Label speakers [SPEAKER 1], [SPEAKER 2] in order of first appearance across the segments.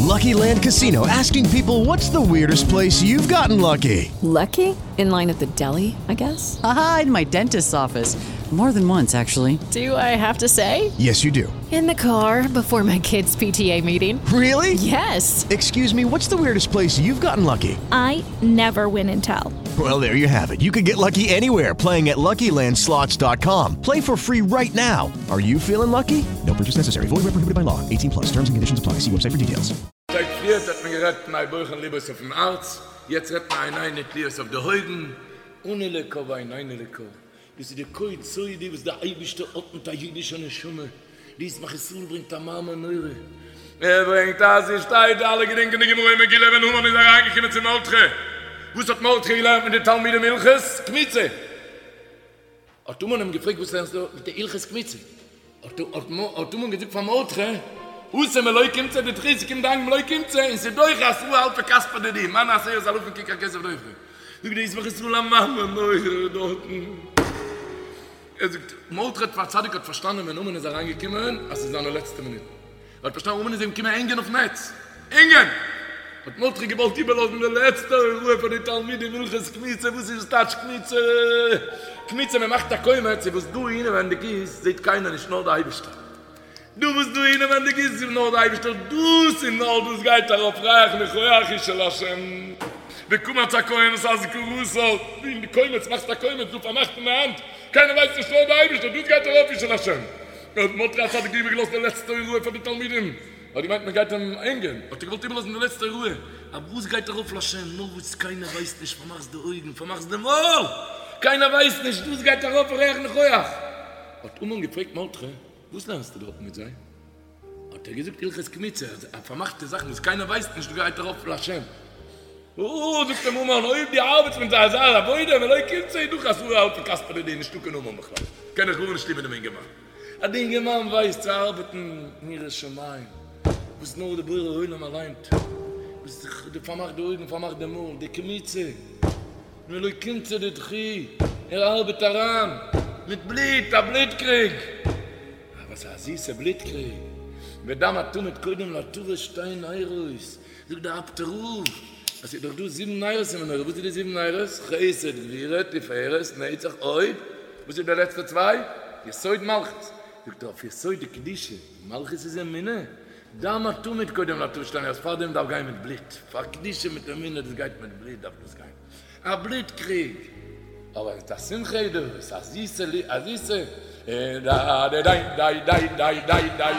[SPEAKER 1] Lucky Land Casino asking people what's the weirdest place you've gotten lucky?
[SPEAKER 2] Lucky? In line at the deli, I guess?
[SPEAKER 3] Aha, in my dentist's office. More than once, actually.
[SPEAKER 2] Do I have to say?
[SPEAKER 1] Yes, you do.
[SPEAKER 2] In the car before my kids' PTA meeting.
[SPEAKER 1] Really?
[SPEAKER 2] Yes.
[SPEAKER 1] Excuse me, what's the weirdest place you've gotten lucky?
[SPEAKER 4] I never win and tell.
[SPEAKER 1] Well, there you have it. You can get lucky anywhere playing at LuckyLandSlots.com. Play for free right now. Are you feeling lucky? No purchase necessary. Void where prohibited by law. 18 plus. Terms and conditions apply. See website for details.
[SPEAKER 5] שטייט פריערט האט מען גערעדט פני בוחן לבו אויפן הארץ, יעצט רעדט מען עינינו תלויות אויף די אויגן, אנו לקה ועינינו לקה. דאס איז די קוד סודי וואס דער אייבערשטער האט מיט א אידישע נשמה, די ישמח ישראל ברענגט א מאמר נורא, ער ברענגט אז עס שטייט, אלע געדענקען די גמרא אין מגילה ווען המן איז אריינגעקומען צו מרדכי, וואס האט מרדכי געלערנט מיט די תלמידים הלכות קמיצה, האט המן אים געפרעגט וואס לערנסטו מיט די הלכות קמיצה, האט המן געזאגט פאר מרדכי, התם מלא קומצא דידכו, ס'קומט דאנק מלא קומצא און ס'דוחה עשרה אלפי כספא דידי, מיינע עשרת אלפים ככר כסף דוחה. זאגט די ישמח ישראל א מאמר נורא דארטן, ער זאגט, מרדכי הצדיק האט פארשטאנען ווען המן איז אריין געקומען אז ס'איז זיינע לעצטע מינוטן, ער האט פארשטאנען המן איז אים געקומען הענגען אויפן עץ, הענגען! האט מרדכי געוואלט איבערלאזן די לעצטע הוראה פאר די תלמידים הלכות קמיצה, וואס איז טייטש קמיצה? קמיצה מען מאכט א קומץ, וואס דא אינעווענדיג איז זעט קיינער נישט נאר די אייבערשטער. דא וואס דא אינעווענדיג איז איז נאר די אייבישטער דאס און נאר דאס גייט ארויף ריח ניחוח אשה להשם וקמץ הכהן את אזכרתה אין די קומץ מאכסט א קומץ דא פארמאכט אין די האנט קיינער ווייסט נישט נאר די אייבישטער דאס גייט ארויף אשה להשם האט מרדכי הצדיק איבערגעלאזט די לעצטע הוראה פאר די תלמידים האט געמיינט מען גייט אים הענגען האט ער געוואלט איבערלאזן די לעצטע הוראה אבער וואס גייט ארויף להשם נאר וואס קיינער ווייסט נישט פארמאכסט די אויגן פארמאכסט די מויל קיינער ווייסט נישט דאס גייט ארויף ריח ניחוח האט המן געפרעגט מרדכי וואס לערנסטו דארטן מיט זיי? האט ער געזאגט הלכות קמיצה, אז א פארמאכטע זאך וואס קיינער ווייסט נישט גייט ארויף להשם. או, זאגט אים המן, אויב דו ארבעטסט מיט זיי אזא עבודה, מלא קומצא איז דוחה עשרה אלפי כספא דידי, נישטא קיין המן בכלל, קען איך גארנישט טון מיט דעם אינגערמאן. אז די אינגערמאן ווייסט צו ארבעטן אין יראת שמים, וואס נאר די בורא עולם אליין, וואס דו פארמאכט די אויגן, פארמאכט די מויל, די קמיצה. מלא קומצא דידכו, ער ארבעט אריין מיט בלוט, א בלוט קריג, אבער ס'איז א זיסע בלוט קריג, ודם התמיד קודם להתרת שתי נרות, זאגט דער אפטער רב אז ס'איז דאך דא זיבן נרות אין מנורה, וואס איז די זיבן נרות? חסד גבורה תפארת נצח הוד, וואס איז די לעצטע צוויי? יסוד מלכות, זאגט ער אויף יסוד דקדושה, מלכות איז אמונה, דם התמיד קודם להתרת שתי נרות, פארדעם דארף גיין מיט בלוט, פאר קדושה מיט אמונה דאס גייט מיט בלוט דארף דאס גיין, א בלוט קריג, אבער מיט א שמחה איז דאס, א זיסע א זיסע דיי דיי דיי דיי דיי דיי דיי.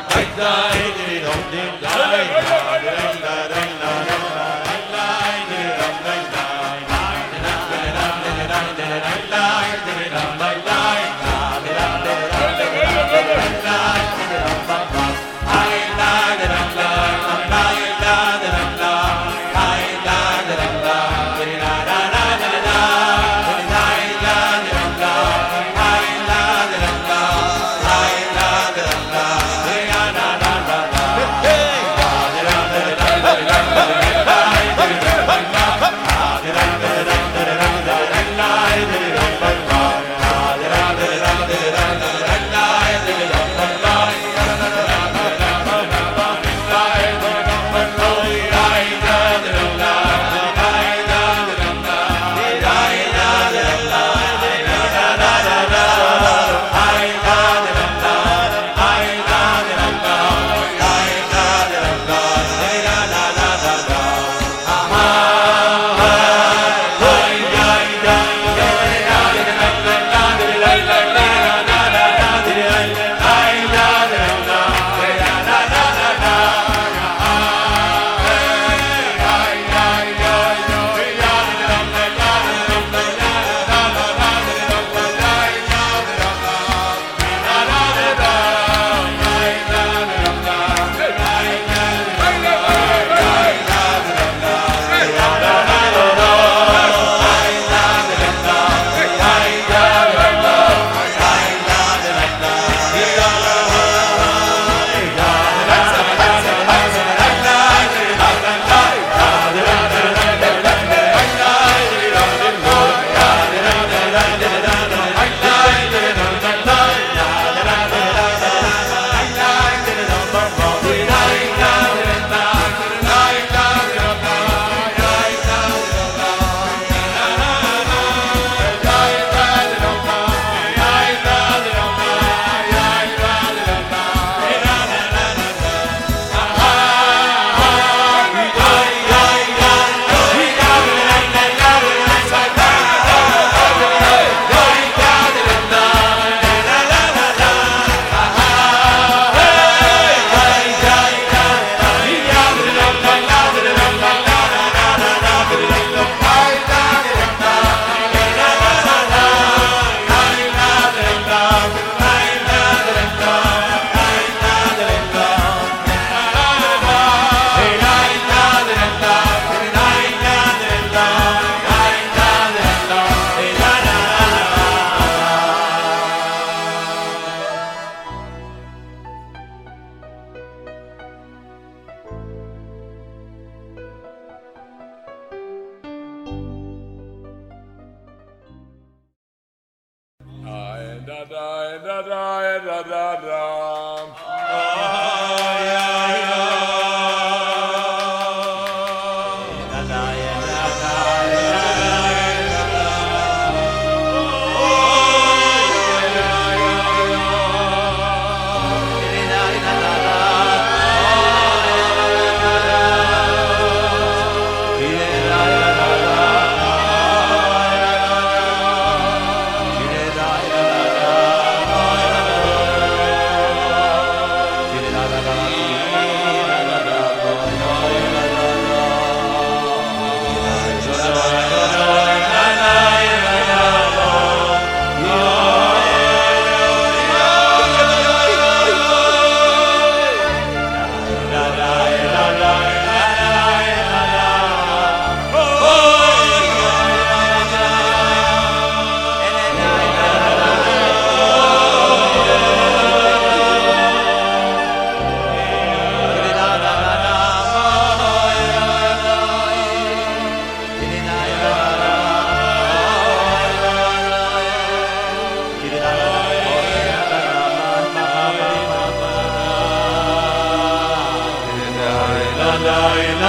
[SPEAKER 5] געווען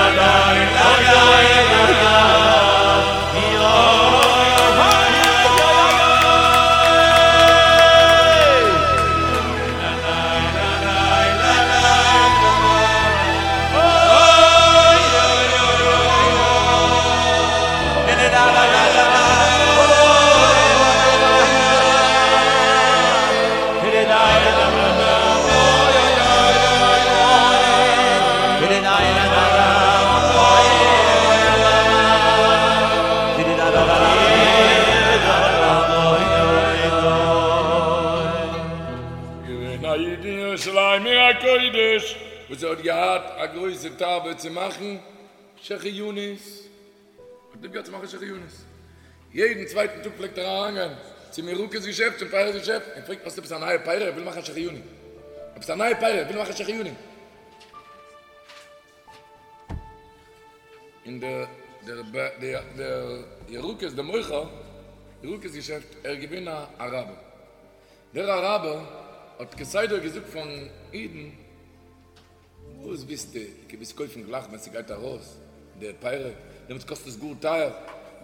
[SPEAKER 5] א איד אין ירושלים עיר הקודש וואס ער האט געהאט א גרויסע תאווה צו מאכן שהחיינו'ס, האט ליב געהאט צו מאכן שהחיינו'ס, יעדן צווייטן טאג פלעגט ער אריינגיין צום ירקות געשעפט, צום פירות געשעפט, און פרעגט האסט עפעס א נייע פירה איך וויל מאכן א שהחיינו, עפעס א נייע פירה איך וויל מאכן א שהחיינו. און דער דער דער ירקות דער מוכר ירקות געשעפט ער איז געווען א אראבער, דער אראבער האט כסדר געזאגט פארן אידן, וואס ווילסטו, דו ווילסט קויפן גלייך ווען ס'גייט ארויס די פירות, דעמאלטס קאסט עס גאר טייער,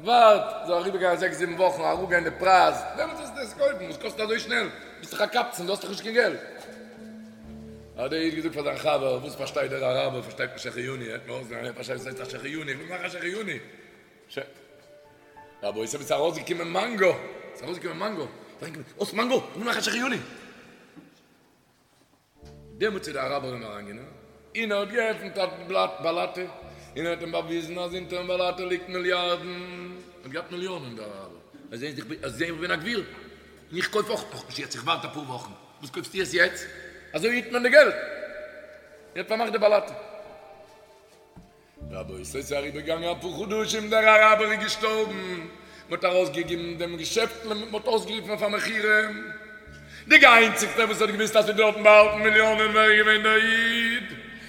[SPEAKER 5] ווארט זאל אריבערגיין זעקס זיבן וואכן אראפגיין די פרייז, דעמאלטס וועסטו עס קויפן, וואס קאסט אזוי שנעל, ביסט דאך א קבצן, דו האסט דאך נישט קיין געלט. האט דער איד געזאגט פאר זיין חבר, וואס פארשטייט דער אראבער, פארשטייט נישט שהחיינו, ער האט מיר אויסגעלערנט, ער פארשטייט וואס הייסט א שהחיינו, איך וויל מאכן א שהחיינו. ש. רבותי, ס'איז ארויסגעקומען מאנגא, ס'איז ארויסגעקומען מאנגא, האסט מאנגא, איך וויל מאכן א שהחיינו. דעמאלטס איז דער אראבער אים אריינגענומען און ער האט געעפנט א בלאט באלאטע און ער האט אים באוויזן אז אונטערן באלאטע ליגט מיליארדן, ער האט געהאט מיליאנען דער אראבער, ער זעהט איך בין איך בין א גביר און איך קויף אויך נאכנישט יעצט איך ווארט אפאר וואכן, וואס קויפסטו עס יעצט? אזוי היט מען די געלט, ער האט פארמאכט די באלאטע. רבותי, ס'איז אריבערגעגאנגען אפאר חדשים, דער אראבער איז געשטארבן, מ'האט ארויסגעגעבן דעם געשעפט, מ'האט אויסגערופן אויף א מכירה, די איינציגסטער וואס האט געוואוסט אז ס'איז דארטן באהאלטן מיליאנען ווער איז געווען דער איד,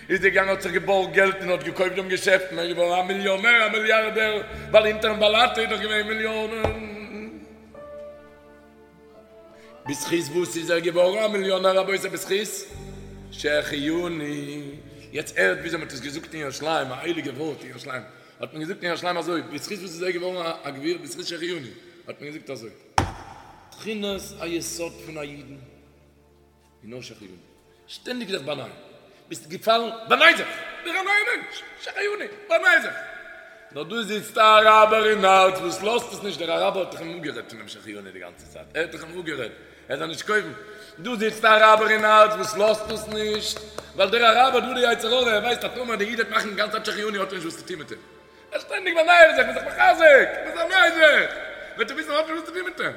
[SPEAKER 5] איז געגאנגען האט זיך געבארגט געלט און האט געקויפט דעם געשעפט און ער איז געווארן א מיליאנער א מיליארדער, ווייל אונטערן באלאטע איז דאך געווען מיליאנען. בזכות וואס איז ער געווארן א מיליאנער רבותי? בזכות שהחיינו. יעצט הערט וויאזוי מען האט עס געזאגט אין ירושלים, א הייליגע ווארט אין ירושלים האט מען געזאגט אין ירושלים אזוי, בזכות וואס איז ער געווארן א גביר? בזכות שהחיינו האט מען געזאגט אזוי, תכונת היסוד פון א אידן איז נאר שהחיינו, שטענדיג זיך באנייען, ביסט געפאלן, באניי זיך, ווער א נייער מענטש, שהחיינו, באניי זיך. נאר דא זיצט א אראבער אין הארץ וואס לאזט עס נישט, דער אראבער האט דאך אים אפגערעדט פונעם שהחיינו די גאנצע צייט, ער האט דאך אים אפגערעדט ער זאל נישט קויפן, דא זיצט א אראבער אין הארץ וואס לאזט עס נישט, ווייל דער אראבער דא די יצר הרע, ער ווייסט אז טאמער דער איד וועט מאכן די גאנצע צייט שהחיינו האט ער נישט וואס צו טון מיט אים, ער שטענדיג באניי זיך, מ'איז זיך מחזק, מ'איז זיך, וועט ער וויסן ער האט נישט וואס צו טון מיט אים.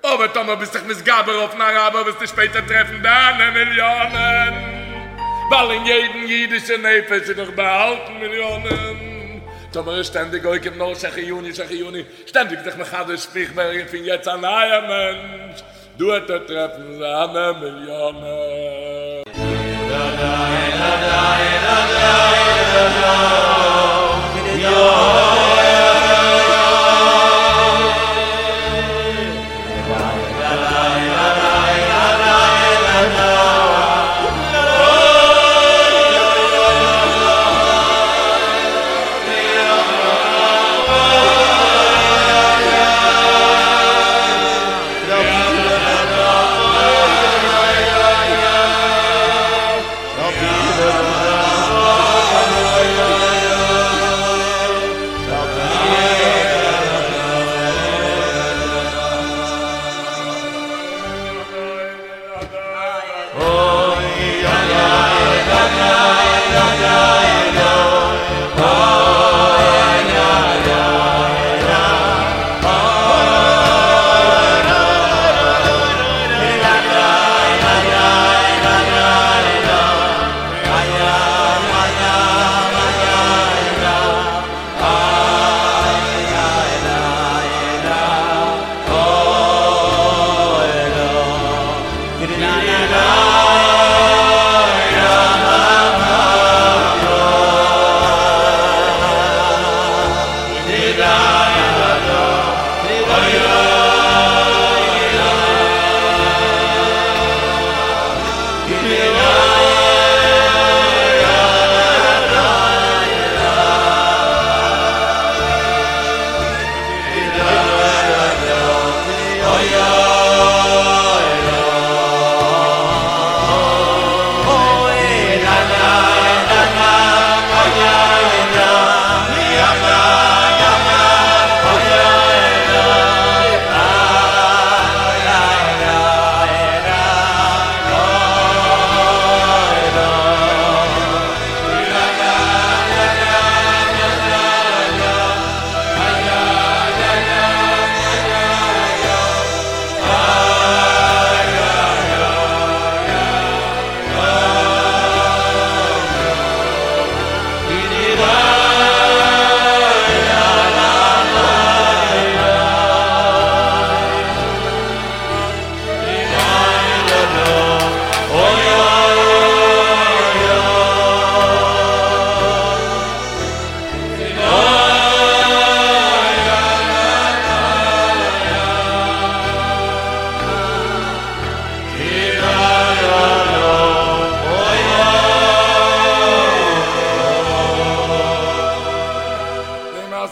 [SPEAKER 5] אבער טאמער ביסט זיך מתגבר אויפן אראבער וועסטו שפעטער טרעפן דיינע מיליאנען, ווייל אין יעדן אידישע נפש איז דאך באהאלטן מיליאנען. טאמער איז שטענדיג עוקב נאר שהחיינו שהחיינו, שטענדיג זיך מחדש איך ווער פון יעצט א נייער מענטש, דא וועט ער טרעפן זיינע מיליאנען.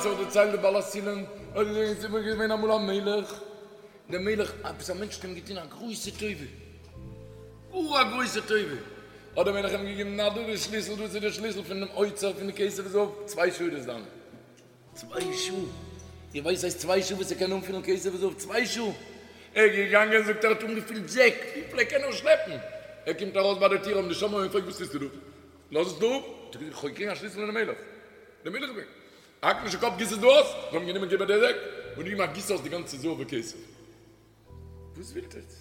[SPEAKER 5] מעשה האט דערציילט דער בעל הסולם, ער האט געזאגט עס איז געווען אמאל א מלך, דער מלך, עפעס א מענטש האט אים געטון א גרויסע טובה, גאר א גרויסע טובה, האט דער מלך אים געגעבן נא דא די שליסל, דאס איז דער שליסל פונעם אוצר פון די כסף וזהב, צוויי שעה איז דאס דיינע. צוויי שעה! איר ווייסט ס'הייסט צוויי שעה וואס ער קען אנפילן כסף וזהב? צוויי שעה! ער איז געגאנגען זאגט ער האט אנגעפילט זעק וויפיל ער קען נאר שלעפן, ער קומט ארויס ביי די טיר האבן די שומרים אים געפרעגט וואס טוסטו דא? לאז עס דא אפ! האט ער געזאגט איך האב געקריגן א שליסל פונעם מלך, דער מלך וויל האק נישט די קאפ גיס עס דא אויס, זיי האבן גענומען געבער די זעק און געגעבן א גיס אויס די גאנצע זהב וכסף. וואס ווילט עטס?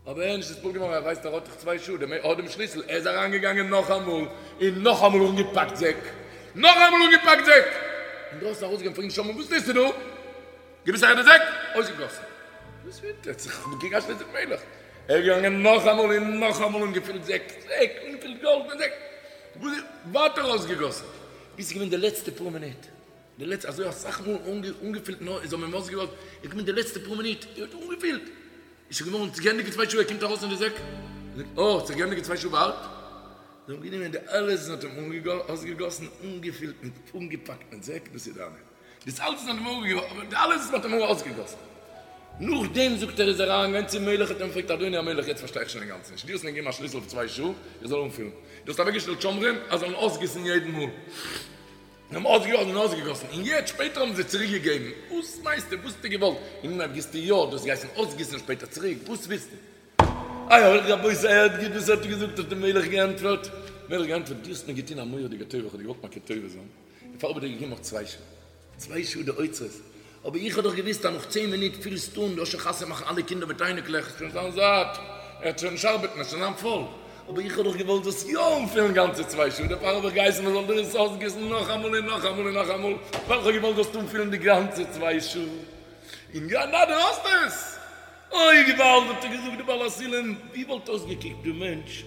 [SPEAKER 5] אבער ער איז נישט נתפעל געווארן, ער ווייסט ער האט דאך צוויי שעה, דער האט דעם שליסל, ער איז אריין געגאנגען נאכאמאל און נאכאמאל אנגעפאקט זעק, נאכאמאל אנגעפאקט זעק, אינדרויסן ארויסגעגאנגען פרעגן שומרים וואס טוסטו דא? גיב עס אהער די זעק, אויסגעגאסן, וואס ווילט עטס? איך האב געקריגן א שליסל פון מלך, ער איז געגאנגען נאכאמאל און נאכאמאל אנגעפילט זעק, זעק, אנגעפילט גאלד מיט זעק, ווייטער אויסגעגאסן, ביז ס'איז געווען די לעצטע פאר מינוט. די לעצטע, אזוי אסאך מאל אנגעפילט נאר איז האבן אים אויסגעלאזט, איז געקומען די לעצטע פאר מינוט, ער האט אנגעפילט, איז שוין געווארן געענדיגט צוויי שעה, ער קומט ארויס אין די זעק, זאגט אה, האט זיך געענדיגט צוויי שעה ווארט, זיי האבן גענומען די אלעס און האט אים אויסגעגאסן, אנגעפילט מיט, אנגעפאקט מיט זעק, דאס איז דיינע, דאס אלעס האט אים אבער די אלעס האט אים אויסגעגאסן, נאכדעם זאגט ער איז ער אריינגעגאנגען צום מלך האט אים געפרעגט אדוני המלך יעצט פארשטיי איך שוין אינגאנצן נישט, דו האסט מיר געגעבן א שליסל אויף צוויי שעה איך זאל אנפילן, דו האסט אוועקגעשטעלט שומרים אז זאלן אויסגיסן יעדן מאל. זיי האבן אויסגעגאסן און אויסגעגאסן, און יעצט שפעטער האבן זיי צוריק געגעבן, וואס מיינסטו, וואס האסטו געוואלט, אין אנהייב גיסטו יא, דו האסט געהייסן אויסגיסן שפעטער צוריק, וואס ווילסטו? איי רבותי הערט גוט וואס ער האט געזאגט, האט דער מלך געענטפערט, מלך געענטפערט, דו האסט מיר געטון א מורא'דיגע טובה, איך האב דיר געוואלט מכיר טובה זיין, דערפאר האב איך דיר געגעבן נאך צוויי שעה, צוויי שעה די אוצרות, אבער איך האב דאך געוואוסט אז נאך צען מינוט פילסטו אן, דו האסט שוין חתונה מאכן אלע קינדער מיט אייניקלעך, עס וועט שוין זיין זאט, ער וועט שוין נישט ארבעטן, עס וועט שוין זיין פול, אבער איך האב דאך געוואלט זאלסט יא אנפילן גאנצע צוויי שעה, דערפאר האב איך געהייסן מען זאל דיר עס אויסגיסן נאכאמאל און נאכאמאל און נאכאמאל, ווייל איך האב געוואלט זאלסט אנפילן די גאנצע צוויי שעה, און יא, נא דו האסט עס! אוי געוואלד האט ער געזאגט די בעל הסולם, ווי וואלט אויסגעקוקט די מענטש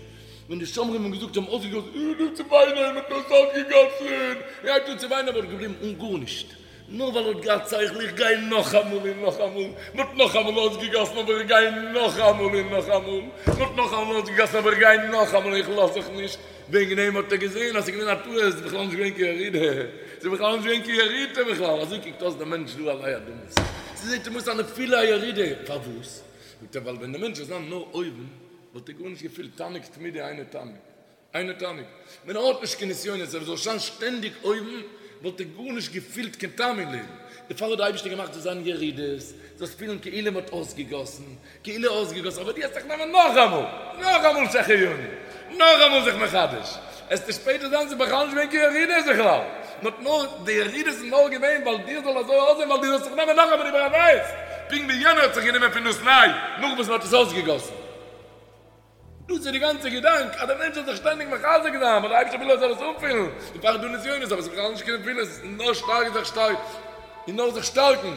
[SPEAKER 5] ווען די שומרים האבן געזאגט זיי האבן אויסגעגאסן, ער הייבט אן צו וויינען, מען האט עס אויסגעגאסן, ער הייבט אן צו וויינען אבער געבליבן אן גארנישט, נאר ווייל ער האט געהאט שכל, איך גיי נאכאמאל און נאכאמאל, מען האט נאכאמאל אויסגעגאסן אבער איך גיי נאכאמאל און נאכאמאל, מען האט נאכאמאל אויסגעגאסן אבער איך גיי נאכאמאל, איך לאז זיך נישט, וועגן דעם האט ער געזען אז ס'איז געווען א טעות, ס'איז בכלל נישט געווען קיין ירידה, ס'איז בכלל נישט געווען קיין ירידה בכלל, אזוי קוקט אויס דער מענטש דא עלי אדמות, ס'זעט אים אויס א נפילה א ירידה, פארוואס? זאגט ער ווייל ווען דער מענטש זאל זיין נאר אויבן וואלט ער גארנישט געפילט, תענוג תמידי אינו תענוג. אינו תענוג. ווען ער האט נישט קיין נסיונות, ער זאל זיין שטענדיג אויבן, וואלט ער גארנישט געפילט קיין טעם אין לעבן. דערפאר האט דער אייבערשטער געמאכט זאל זיין ירידות, זאלסט פילן כאילו מען האט אויסגעגאסן, כאילו אויסגעגאסן, אבער דו וועסט זיך נעמען נאכאמאל, נאכאמאל שהחיינו, נאכאמאל זיך מחדש, עסטו שפעטער זען ס'איז בכלל נישט געווען קיין ירידות בכלל, נאר נאר די ירידות איז נאר געווען ווייל דיר זאל אזוי אויסזען ווייל דו זאלסט זיך נעמען נאכאמאל איבער א נייעס, פונקט ווי יענער האט זיך גענומען פון דאס ניי נאך וואס מען האט עס אויסגעגאסן. דאס איז די גאנצע געדאנק, אז דער מענטש זאל זיך שטענדיג מחזק זיין, ווייל דער אייבערשטער וויל ער זאל עס אנפילן, דערפאר איז דא נסיונות, אבער עס איז בכלל נישט קיין נפילות, נאר שטארק זיך שטארק, און נאר זיך שטארקן.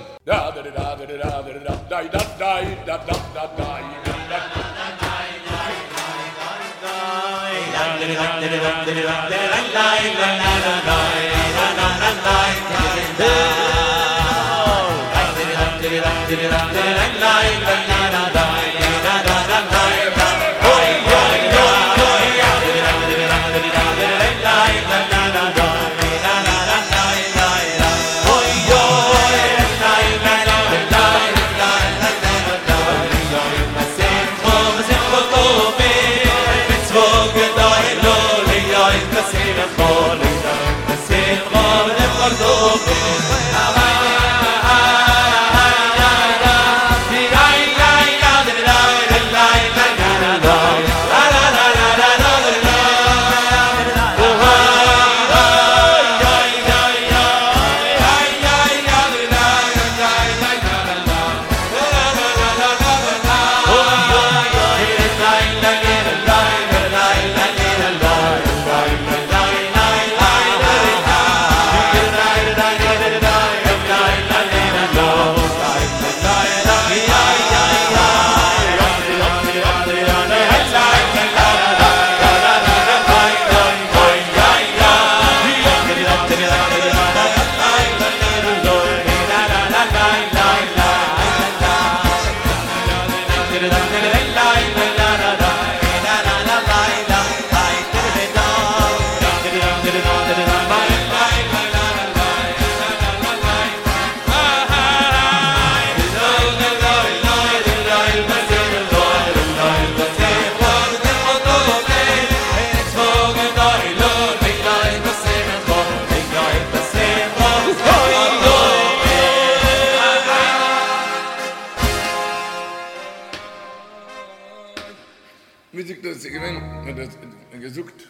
[SPEAKER 5] עס איז געווען, מען האט געזאגט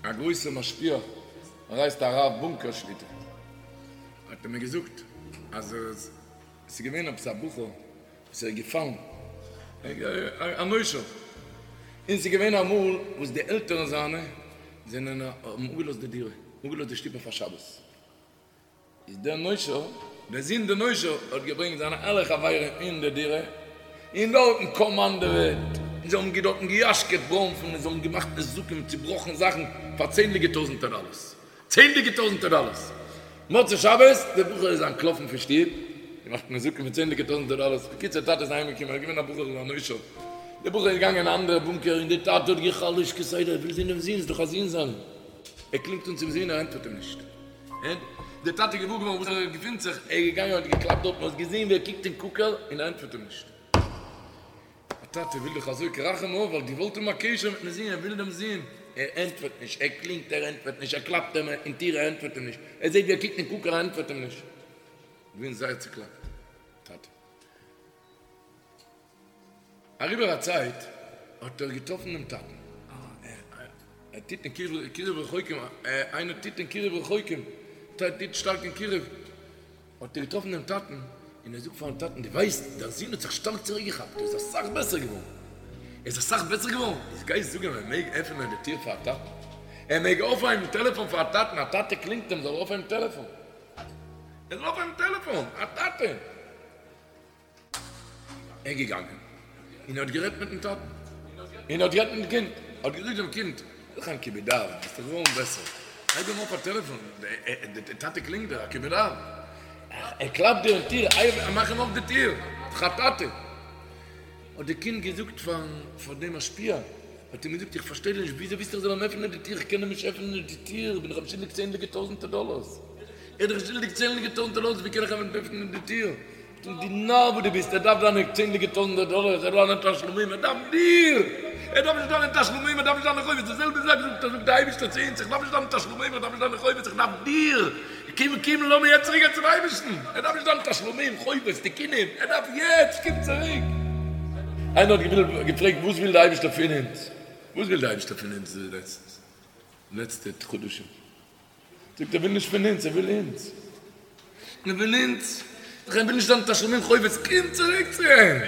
[SPEAKER 5] א גרויסע משפיע, ער הייסט הרב בונקער שליטא, האט ער מיר געזאגט אז עס איז געווען עפעס א בחור וואס ער איז געפאלן, א נושר, און ס'איז געווען אמאל וואס די עלטערן זיינע זענען האבן אפגעלאזט די דירה, אפגעלאזט די שטוב אויף א שבת, איז דער נושר, דער זון דער נושר, האט געברענגט זיינע אלע חברים אין די דירה, און דארטן קאמאנדעוועט, און זיי האבן דארטן געיאשקעט בראנפן, און זיי האבן געמאכט נזקים, צובראכן זאכן פאר צענדליגע טויזנטער דאלערס. צענדליגע טויזנטער דאלערס. מוצאי שבת, דער בחור איז אנטלאפן פון שטוב, געמאכט נזקים פון צענדליגע טויזנטער דאלערס. בקיצור, טאטע איז אהיימגעקומען, ער איז געווען א בחור א נושר. דער בחור איז געגאנגען אין א אנדערע בונקער, און דער טאטע האט גע'חלש'ט כסדר, ער וויל זען דעם זון, ס'איז דאך א זון זיינער. ער קלינגט אן צום זון, ער ענטפערט אים נישט. דער טאטע איז געוואר געווארן וואו ער געפינט זיך, ער איז געגאנגען און האט געקלאפט דארטן, האט געזען ווי ער קוקט אין קוקעל און ער ענטפערט אים נישט. א טאטע וויל דאך אזוי כרחם אב, ווייל געוואלט האבן א קשר מיטן זון, ער וויל דעם זון, ער ענטפערט נישט, ער קלינגט ער ענטפערט נישט, ער קלאפט אים אין טיר ער ענטפערט אים נישט, ער זעט ווי ער קוקט אין קוקעל ער ענטפערט אים נישט. געווען זייער צוקלאפט טאטע. אריבער א צייט האט ער געטראפן דעם טאטן, ער טוט אין קירוב רחוקים, איינער טוט אין קירוב רחוקים, טוט שטארק אין קירוב, האט ער געטראפן דעם טאטן, און ער זאגט פארן טאטן, דו ווייסט, דיין זון האט זיך שטארק צוריקגעכאפט, ער איז אסאך בעסער געווארן, ער איז אסאך בעסער געווארן, איז גיי זאג אים ער מעג עפענען די טיר פאר א טאטן, ער מעג אויפהייבן טעלעפאן פאר א טאטן, א טאטע קלינגט אים זאל ער אויפהייבן טעלעפאן, ער זאל אויפהייבן טעלעפאן, א טאטע. ער איז געגאנגען און ער האט גערעדט מיטן טאטן, און ער האט גערעדט מיטן קינד, ער האט געזאגט דעם קינד, זיך א כיבוד אב, ביסט דאך געווארן בעסער, הייב אים אויף א טעלעפאן, דער טאטע קלינגט דיר, א כיבוד אב, ער קלאפט דיר אין טיר, מאך אים אויף די טיר, ס'איז דאך א טאטע. האט די קינד געזאגט פאר דעם משפיע, האט אים געזאגט, איך פארשטיי דיר נישט, וויאזוי ווילסטו איך זאל אים עפענען די טיר, איך קען אים נישט עפענען די טיר, איך בין דאך אים שולדיג צענדליגע טויזנטער דאלארס, ער איז דאך שולדיג צענדליגע טויזנטער דאלארס, ווי קען איך אים עפענען די טיר? דו נאר וואס דו ביסט, ער דארף דיינע צענדליגע טויזנטער דאלארס, ער דארף דיינע תשלומים, ער דארף דיר! ער דארף נישט דיינע תשלומים, ער דארף נישט דיינע חובות, די זעלבע זאך זאגט זאגט דער אייבערשטער צו אונז, איך דארף נישט דיינע תשלומים, איך דארף נישט דיינע חובות, איך דארף דיר! קום קום לאמיר יעצט צוריק גיין צום אייבערשטן, ער דארף נישט דיינע תשלומים, חובות, תיקונים, ער דארף יעצט, קום צוריק! איינער האט געפרעגט וואס וויל דער אייבערשטער פון אונז? וואס וויל דער אייבערשטער פון אונז די לעצטע חדשים? זאגט ער וויל נישט פון אונז, ער וויל אונז. ער וויל אונז. ער וויל נישט דיין תשלומים חובות, קום צוריק צו אים.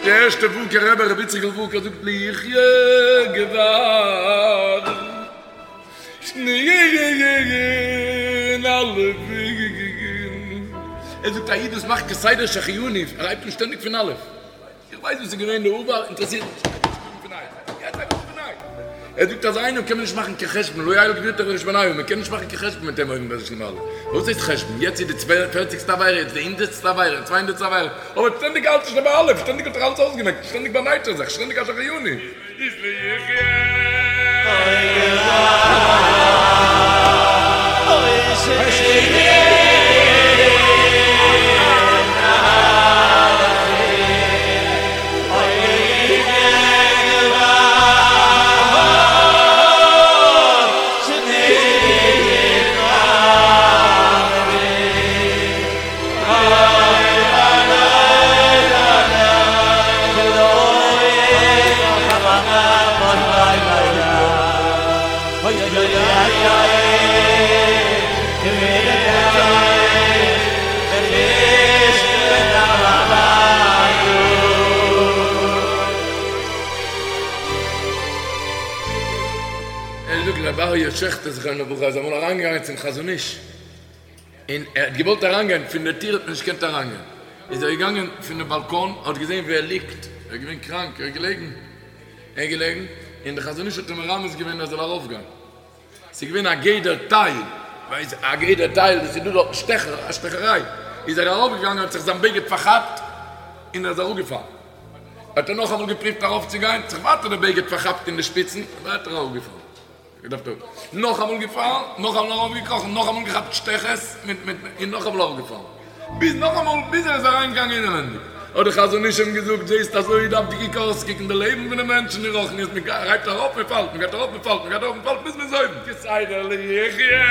[SPEAKER 5] די ערשטע ווארקער רבי רבי איציקל ווארקער זאגט לו יחיה גבר שנין אלפין ער זאגט א איד וואס מאכט כסדר שהחיינו ער הייבט אן שטענדיג פון אלף איך ווייס וואס איז געווען די עבר אינטערעסירט מיך נישט יעצט הייב איך אן פון ניי ער זאגט אז איינעם קען מען נישט מאכן קיין חשבון לא יעלה גבורתך וחשבונהו מען קען נישט מאכן קיין חשבון מיט אים אויבן ביי זיך למעלה וואס הייסט חשבון יעצט איז די פערציגסטע עבירה יעצט די הונדערטסטע עבירה צוויי הונדערטסטע עבירה אבער שטענדיג האלט ער שוין ביי אלף שטענדיג האט ער אלעס אויסגעמעקט שטענדיג באנייט ער זיך שטענדיג א שהחיינו איז לו יחיה. ער זאגט רבי אריה שעכטער זכרונו לברכה איז אמאל אריינגעגאנגען צום חזון איש און ער האט געוואלט אריינגיין, פון די טיר האט מען נישט געקענט אריינגיין, איז ער געגאנגען פון די באלקאן, האט געזען ווי ער ליגט, ער איז געווען קראנק, ער איז געלעגן, ער איז געלעגן, און די חזון איש האט אים מרמז געווען ער זאל ארויפגיין, ס'איז געווען א גדר תיל, ווייסט א גדר תיל, וואס איז דא דארטן שטעכער, א שטעכעריי, איז ער ארויפגעגאנגען האט זיך זיין בגד פארכאפט, און ער איז אראפגעפאלן, האט ער נאכאמאל געפריווט ארויפצוגיין, האט זיך ווייטער די בגד פארכאפט אין די שפיצן, ווייטער אראפגעפאלן. געדארפט אראפ. נאכאמאל געפאלן, נאכאמאל ארויפגעקראכן, נאכאמאל געכאפט שטעכעס מיט מיט און נאכאמאל אראפגעפאלן. ביז נאכאמאל ביז ער איז אריינגעגאנגען אינעווענדיג. האט די חזון איש אים געזאגט, זעסט אזוי דארף די קוק אויסקוקן די לעבן פון די מענטשן אין רוחניות, מען הייבט ארויף מען פאלט, מען גייט ארויף מען פאלט, מען גייט ארויף מען פאלט ביז מען איז אויבן. כסדר לו יחיה.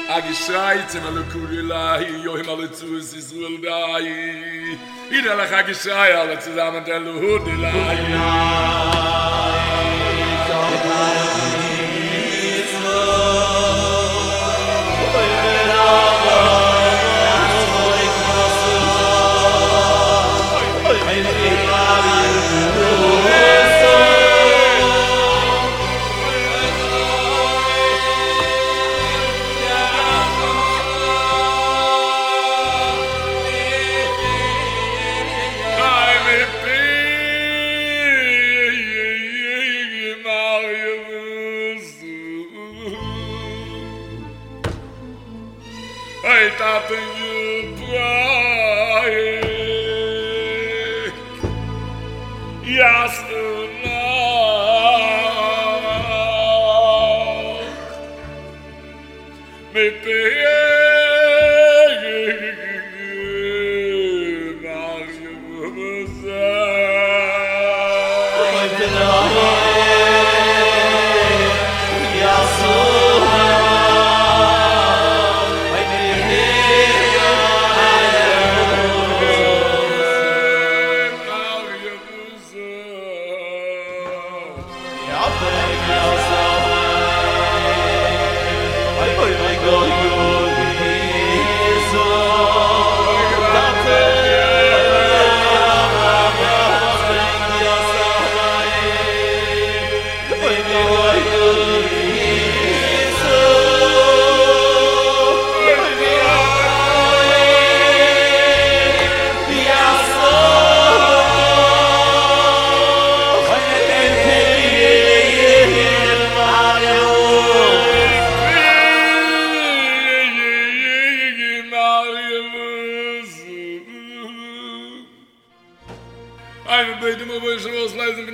[SPEAKER 5] א געשריי צום אלקא דיליה יום על הוצאת ישראל די אידעלעך א געשריי אלע צוזאמען דעלהא דיליה.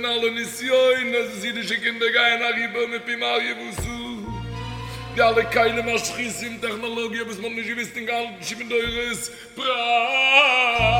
[SPEAKER 5] פון אלע נסיונות וואס אידישע קינדער גייען אריבער מפום אריה ואתא, די אלע כלים משחיתים טעכנאלאגיע וואס מ'האט נישט געוויסט אין געהאלטן שבעים דורות פרא.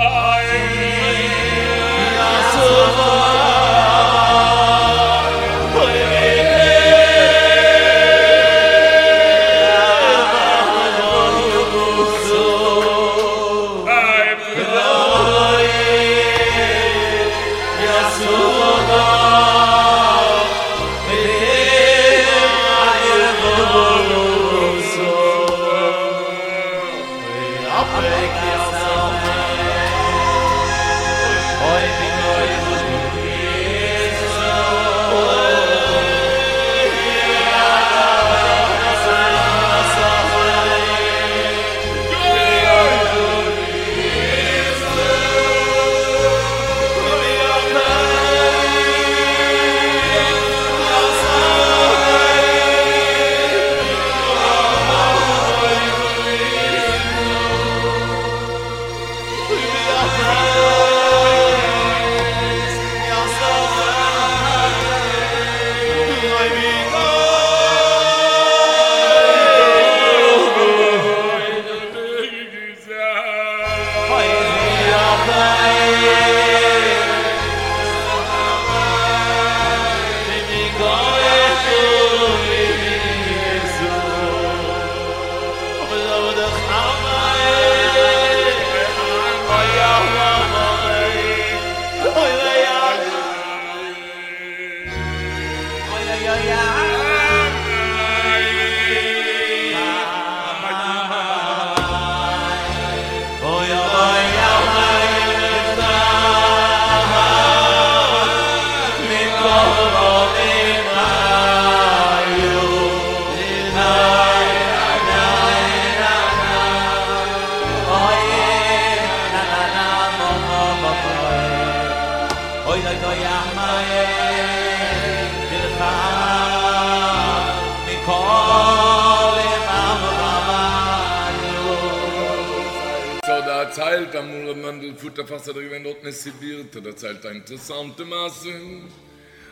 [SPEAKER 5] ס'האט דערציילט אמאל ר' מענדל פוטערפאס איז ער געווען דארטן אין סיביר האט ער דערציילט א אינטערעסאנטע מעשה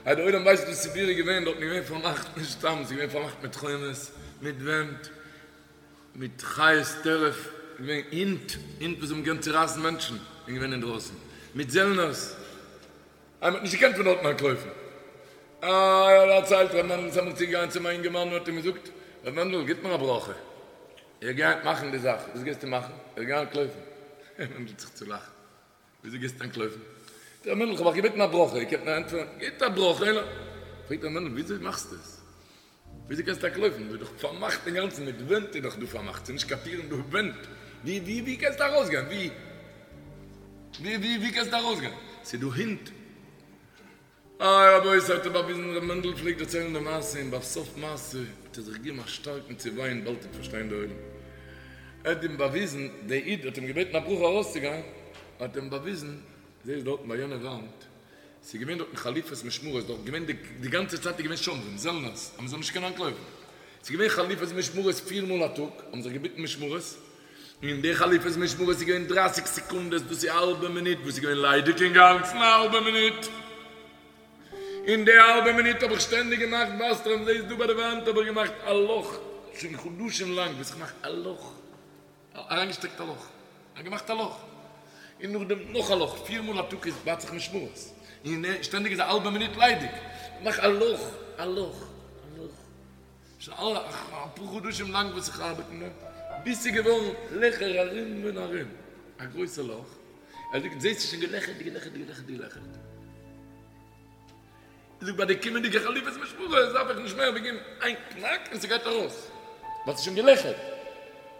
[SPEAKER 5] אז די עולם ווייסט וואס סיביר איז געווען דארטן איז געווען פארמאכט נישט סתם ס'איז געווען פארמאכט מיט חומות מיט ווענט מיט חיות טרף געווען הינט הינט וואס האבן געקענט צורייסן מענטשן איז געווען אינדרויסן מיט זעלנערס אז מ'האט נישט געקענט פון דארטן אנטלויפן. אה, דערציילט ר' מענדל איז אמאל צוגעגאנגען צום אינגערמאן און האט אים געזאגט, ר' מענדל, גיט מיר א ברכה, איך גיי היינט מאכן די זאך, וואס גייסטו מאכן? איך גיי אנטלויפן. ר' מענדל האט זיך צולאכט, וויאזוי גייסטו אנטלויפן? זאגט ר' מענדל, איך האב אייך געבעטן א ברכה, איר קענט מיר ענטפערן, גיט א ברכה, און. פרעגט ר' מענדל, וויאזוי מאכסטו עס? וויאזוי קענסטו אנטלויפן? דא איז דאך פארמאכט אינגאנצן, מיט ווענט איז דאך דא פארמאכט, ס'איז נישט קיין טירן דא, ווענט, ווי ווי ווי קענסטו ארויסגיין? ווי ווי ווי ווי קענסטו ארויסגיין? ס'איז דא הינט. איי רבותי האט ער באוויזן, ר' מענדל פלעגט דערציילן די מעשה און ביי סוף מעשה האט ער זיך געגעבן א שטארקן צעוויין באלד וועט פארשטיין די עולם. ער האט אים באוויזן, דער איד האט אים געבעטן א ברכה ארויסצוגיין, האט אים באוויזן, זעסט דארטן ביי יענע וואנט, ס'איז געווען דארטן חליפות משמרות, דארט געווען די די גאנצע צייט איז געווען שומרים, זעלנערס, אז מ'זאל נישט קענען אנטלויפן. ס'איז געווען חליפות משמרות פיר מאל א טאג, האבן זיך געביטן משמרות, און די חליפות משמרות איז געווען דרייסיג סעקונדעס, דאס איז א האלבע מינוט וואס איז געווען ליידיג אינגאנצן א האלבע מינוט. אין די האלבע מינוט האב איך שטענדיג געמאכט וואסטרעם, זעסט דא ביי די וואנט האב איך געמאכט א לאך, שוין חדשים לאנג וואס איך מאך א לאך. אריינגעשטעקט א לאך, ער האט געמאכט א לאך, און נאכדעם נאך א לאך, פיר מאל א טאג איז בייט זיך משמרות, און שטענדיג איז א האלבע מינוט ליידיג, מאך א לאך, א לאך, א לאך, שוין אפאר חדשים לאנג וואס איך ארבעט אין דעם, ביז ס'איז געווארן לעכער ארום און ארום, א גרויסע לאך, ער זאגט זעסט ס'איז שוין געלעכערט, געלעכערט, געלעכערט, געלעכערט. זאגט ביי די קומענדיגע חליפות משמרות דארף איך נישט מער ווי געבן איין קנאק און ס'גייט ארויס ווייל ס'איז שוין געלעכערט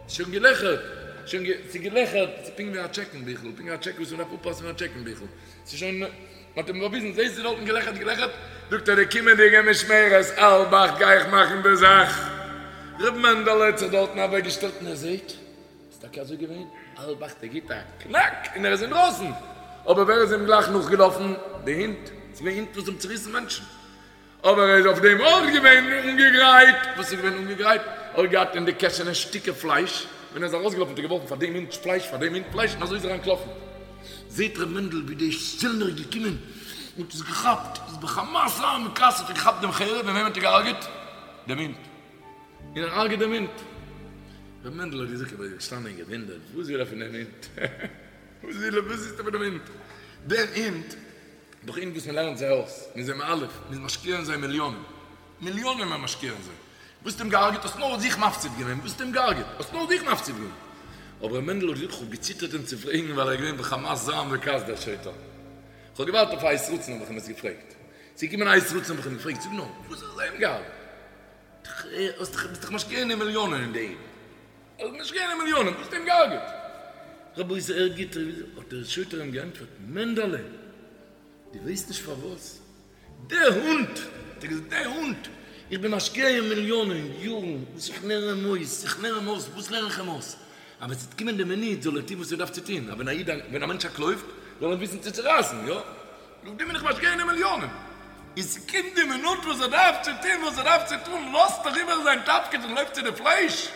[SPEAKER 5] ס'איז שוין געלעכערט שוין גע ס'איז געלעכערט ס'איז פונקט ווי א טשעקן ביכל פונקט ווי א טשעק וואס מ'דארף אפפאסן ווי א טשעקן ביכל ס'איז שוין מ'האט אים באוויזן זעסט ס'איז דארטן געלעכערט געלעכערט זאגט ער די קומענדיגע משמרת האלב אכט גיי איך מאכן די זאך ר' מענדעלע האט זיך דארטן אוועקגעשטעלט און ער זעהט איז טאקע אזוי געווען? האלב אכט ער גיט א קנאק און ער איז אינדרויסן, אבער ווער איז אים גלייך נאכגעלאפן? די הינט, ס'איז געווען הינט וואס האבן צוריסן מענטשן, אבער ער איז אויף דעם אויך געווען אנגעגרייט, וואס איז געווען אנגעגרייט? ער האט געהאט אין די קעשענע שטיקער פלייש, ווען ער איז ארויסגעלאפן האט ער געווארפן פאר דעם הינט פלייש, פאר דעם הינט פלייש, און אזוי איז ער אנטלאפן. זעט ר' מענדל ווי דער זעלנער איז געקומען. האט עס געכאפט, איז בחמת זעם וכעס האט ער געכאפט דעם חרב, און וועם האט ער געהארגעט? דעם הונט. און ער הרג'עט דעם הונט. ר' מענדל האט געזאגט, איך בין געשטאנען און געוואונדערט, וואס וויל ער פון דעם הונט? וואס וויל ער, וואס איז ער פון דעם הונט? דעם הונט, דאך הינט וואס מען לערנט זיי אויס, מען איז זיי מאלף, מען איז משקיע אין זיי מיליאנען, מיליאנען איז מען משקיע אין זיי. וואס האסטו אים געהארגעט? האסט נאר זיך מפסיד געווען, וואס האסטו אים געהארגעט? האסט נאר זיך מפסיד געווען. אבער ר' מענדל האט געזאגט, איך האב געציטערט אים צו פרעגן ווייל ער איז געווען בחמת זעם וכעס דער שוטר. איך האב געווארט אויף א עת רצון האב איך אים עס געפרעגט. ס'איז געקומען א עת רצון האב איך אים געפרעגט, זאג נאר, וואס האסטו אים געהארגעט? ביסט דאך משקיע אין אים מיליאנען אין די הינט. ביסט משקיע אין אים מיליאנען, וואס האסטו אים געהארגעט? רבותי ער גיט, האט דער שוטר אים געענטפערט, מענדעלע, דו ווייסט נישט פארוואס דער הונט, האט ער געזאגט, דער הונט, איך בין משקיע אין מיליאנען יארן וואס איך לערן אים אויס, איך לערן אים אויס, וואס לערן איך אים אויס? אז ווען ס'וועט קומען די מינוט זאל ער טון וואס ער דארף צו טון, אז ווען א איד, ווען א מענטש אנטלויפט, זאל ער וויסן צו צורייסן, יא? נאך דעם בין איך משקיע אין אים מיליאנען. און ס'קומט די מינוט וואס ער דארף צו טון וואס ער דארף צו טון, לאזט ער איבער זיין תפקיד און לויפט צו די פלייש,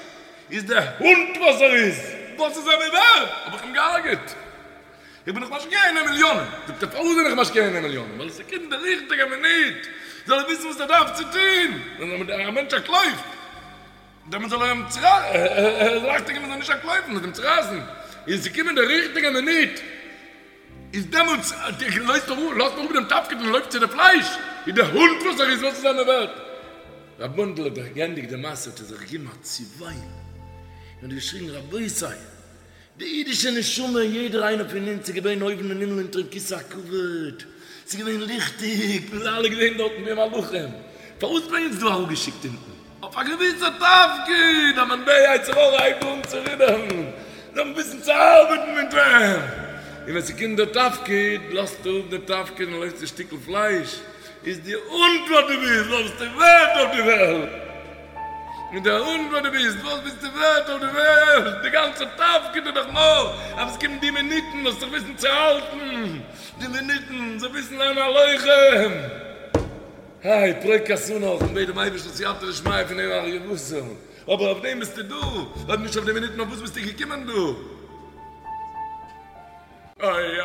[SPEAKER 5] איז דער הונט וואס ער איז, וואס איז ער מיר ווערד? האב איך אים געהארגעט. איך בין דאך משקיע אין אים מיליאנען. זאגט ער, פארוואס בין איך משקיע אין אים מיליאנען? ווייל ס'קומט די ריכטיגע מינוט, זאל ער וויסן וואס ער דארף צו טון. ווען א מענטש אנטלויפט, דעמאלט זאל ער אים צורייסן, אכטונג געבן ער זאל נישט אנטלויפן, מ'זאל אים צורייסן. און ס'קומען די ריכטיגע מינוט, איז דעמאלטס לאזט ער אפ דעם תפקיד און לויפט צו די פלייש, איז דער הונט וואס ער איז, וואס איז ער מיר ווערט? ר' מענדל האט געענדיגט די מעשה האט ער זיך געגעבן א צעוויין און האט געשריגן רבותי! די אידישע נשמה, יעדער איינער פון אונז איז געווען אויבן אין הימל אונטערן כסא הכבוד, ס'איז געווען ליכטיג, מיר זענען אלע געווען דארטן ווי מלאכים, פארוואס האט מען אונז דא אראפגעשיקט אונטן? אויף א געוויסע תפקיד, אז ווען דער יצר הרע הייבט אן צו רודערן, זאל מען וויסן צו ארבעטן מיט אים, און ווען ס'קומט דער תפקיד, לאזט ער אפ די תפקיד און לויפט צו שטיקל פלייש, איז די הונט וואס דו ביסט, וואס ביסטו ווערט אויף די וועלט? און דער הונט וואס דו ביסט, וואס ביסטו ווערט אויף די וועלט? די גאנצע תפקיד איז דאך נאר אז עס קומט די מינוטן זאלסט זיך וויסן צו האלטן, די מינוטן זאל וויסן זיין א לוחם. היי, פרוק כתנך און בעט דעם אייבערשטן סייעתא דשמיא פון דעם אריה בשר, אבער אויף דעם ביסטו דא, אויב נישט אויף די מינוטן אויף וואס ביסטו געקומען דא? אוי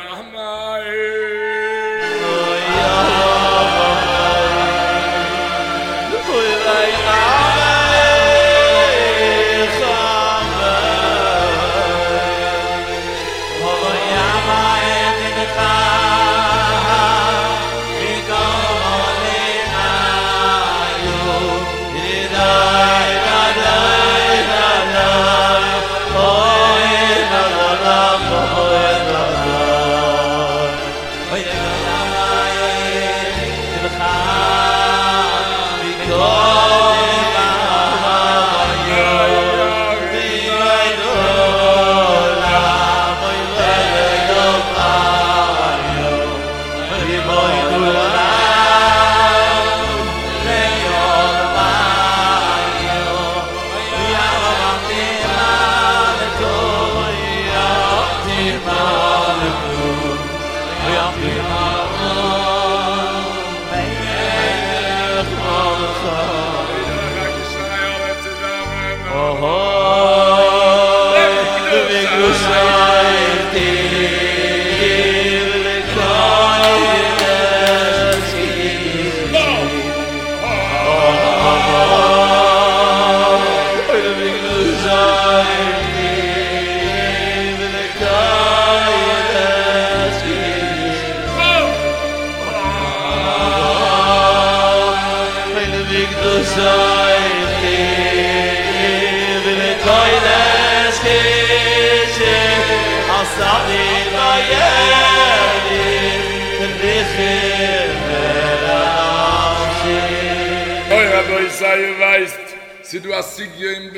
[SPEAKER 5] אוי רבותי איר ווייסט ס'איז דא א סוגיא אין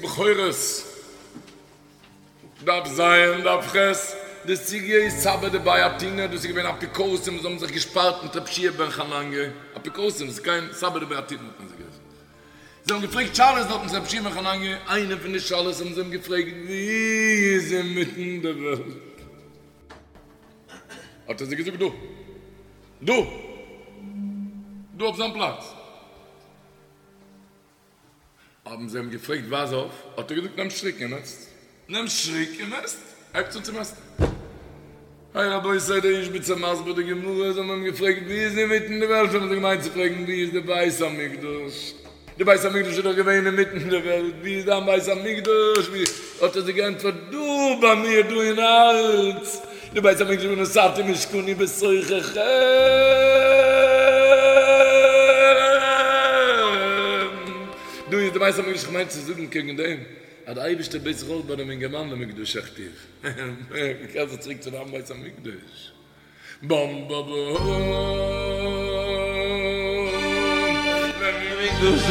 [SPEAKER 5] בכורות דף ז דף ח, די סוגיא איז סבי דבי אתונא, דאס איז געווען אפיקורסים וואס האבן זיך געשפארט מיט רב שיע בן חנניה, אפיקורסים, ס'איז קיין סבי דבי אתונא האט מען זיי גערופן, זיי האבן געפרעגט שאלות דארטן צו רב שיע בן חנניה, איינע פון די שאלות האבן זיי אים געפרעגט ווי איז אינמיטן די וועלט? האט ער זיי געזאגט דא, דא, דא אויף זיין פלאץ. האבן זיי אים געפרעגט ווייז אויף, האט ער געזאגט נעם שטריק און מעסט, נעם שטריק און מעסט, הייבטס אן צו מעסטן. איי רבותי דער איזשביצער מסביר די גמרא, זיי האבן אים געפרעגט ווי איז אינמיטן די וועלט, האבן זיי געמיינט צו פרעגן ווי איז די בית המקדש, די בית המקדש איז דאך געווען אינמיטן די וועלט, ווי איז דיין בית המקדש, ווי, האט ער זיי געענטפערט דא ביי מיר דא אין הארץ, די בית המקדש ונתתי משכני בתוככם. דא איז די בית המקדש, כ'מיין צו זאגן קעגן דעם אז די אייבערשטער בעט זיך אויך ביי דעם אינגערמאן למקדשך תוב. קער זיך צוריק צו דיין בית המקדש. באם בא בא.
[SPEAKER 6] למקדשך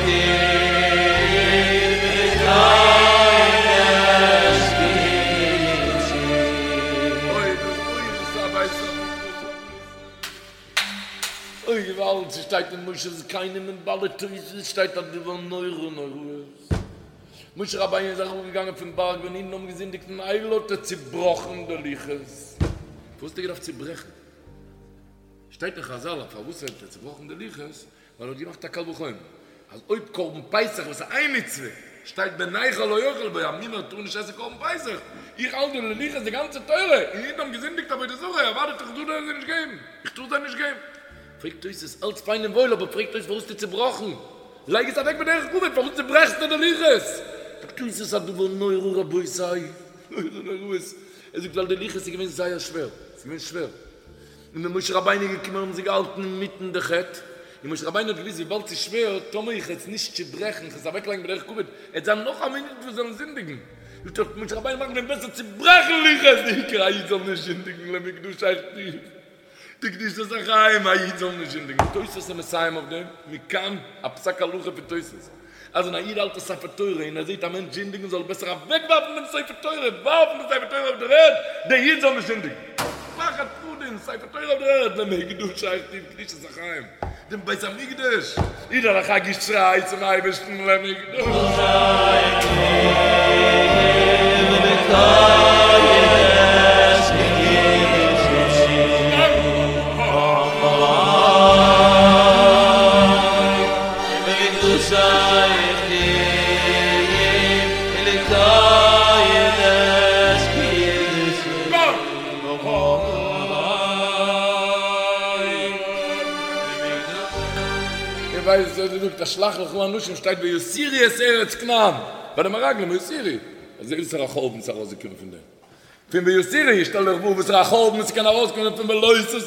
[SPEAKER 6] תוב ולקודש קדשי.
[SPEAKER 5] אוי דאס אוי דאס איז א בית המקדש. אוי געוואלד, ס'שטייט אין מושב זקנים און בעלי תוספות שטייט א דבר נורא נוראות. משה רבינו איז אראפגעגאנגען פון בארג ווען אידן האבן געזינדיגט אין עגל האט ער צובראכן די לוחות. פארוואס האט ער געדארפט צוברעכן? שטייט אין חזל אז פארוואס האט ער צובראכן די לוחות ווייל ער האט געמאכט א קל וחומר אז אויב קרבן פסח וואס איז איין מצוה שטייט בן נכר לא יאכל בו א מומר טאר נישט עסן קרבן פסח איך האלט די לוחות די גאנצע תורה און אידן האבן געזינדיגט עבודה זרה אוודאי טאר איך זיי נישט געבן איך טאר זיי נישט געבן. פרעגט תוס' אלץ פיין און וואויל אבער פרעגט תוס' פארוואס האסטו צובראכן? לייג עס אוועק בדרך כבוד, פארוואס צוברעכסטו די לוחות? זאגט תוס' א דבר נורא רבותי, נורא נוראות, ער זאגט ווייל די לוחות איז געווען זייער שווער, ס'איז געווען שווער, און ווען משה רבינו איז געקומען האבן זיי געהאלטן אינמיטן די חטא, און משה רבינו האט געוואוסט וויבאלד ס'איז שווער, טאמער איך עס נישט צוברעכן, איך עס אוועקלייגן בדרך כבוד, עט זיין נאך א מינוט וואס זאלן זינדיגן, זאגט ער, משה רבינו מאכט ווען בעסער צוברעכן לוחות, די עיקר א איד זאל נישט זינדיגן למקדשך תוב. די קדושת החיים, א איד זאל נישט זינדיגן. תוספות איז מסיים אויף דעם, מכאן א פסק הלכה פון תוספות, אז ווען א איד האלט א ספר תורה און ער זעט א מענטש זינדיגן זאל ער בעסער אוועקווארפן דעם ספר תורה, ווארפן דעם ספר תורה אויף דער ערד, דער איד זאל נישט זינדיגן. פחד פחדים, ספר תורה אויף דער ערד, למקדשך תוב קדושת החיים, דעם בית המקדש, אידעלעך א געשריי צום אייבערשטן למקדשך תוב
[SPEAKER 6] ולקודש קדשי. למקדשך תוב ולקודש קדשי.
[SPEAKER 5] איר ווייסט וואס ער זאגט אז שלח לך אנשים שטייט ויתורו את ארץ כנען ביי די מרגלים ויתורו אזוי וואסערע חורבן ס'איז ארויסגעקומען פון דעם פון ויתורו שטעל דיך פאר וואסערע חורבן ס'קען ארויסקומען פון ולא תתורו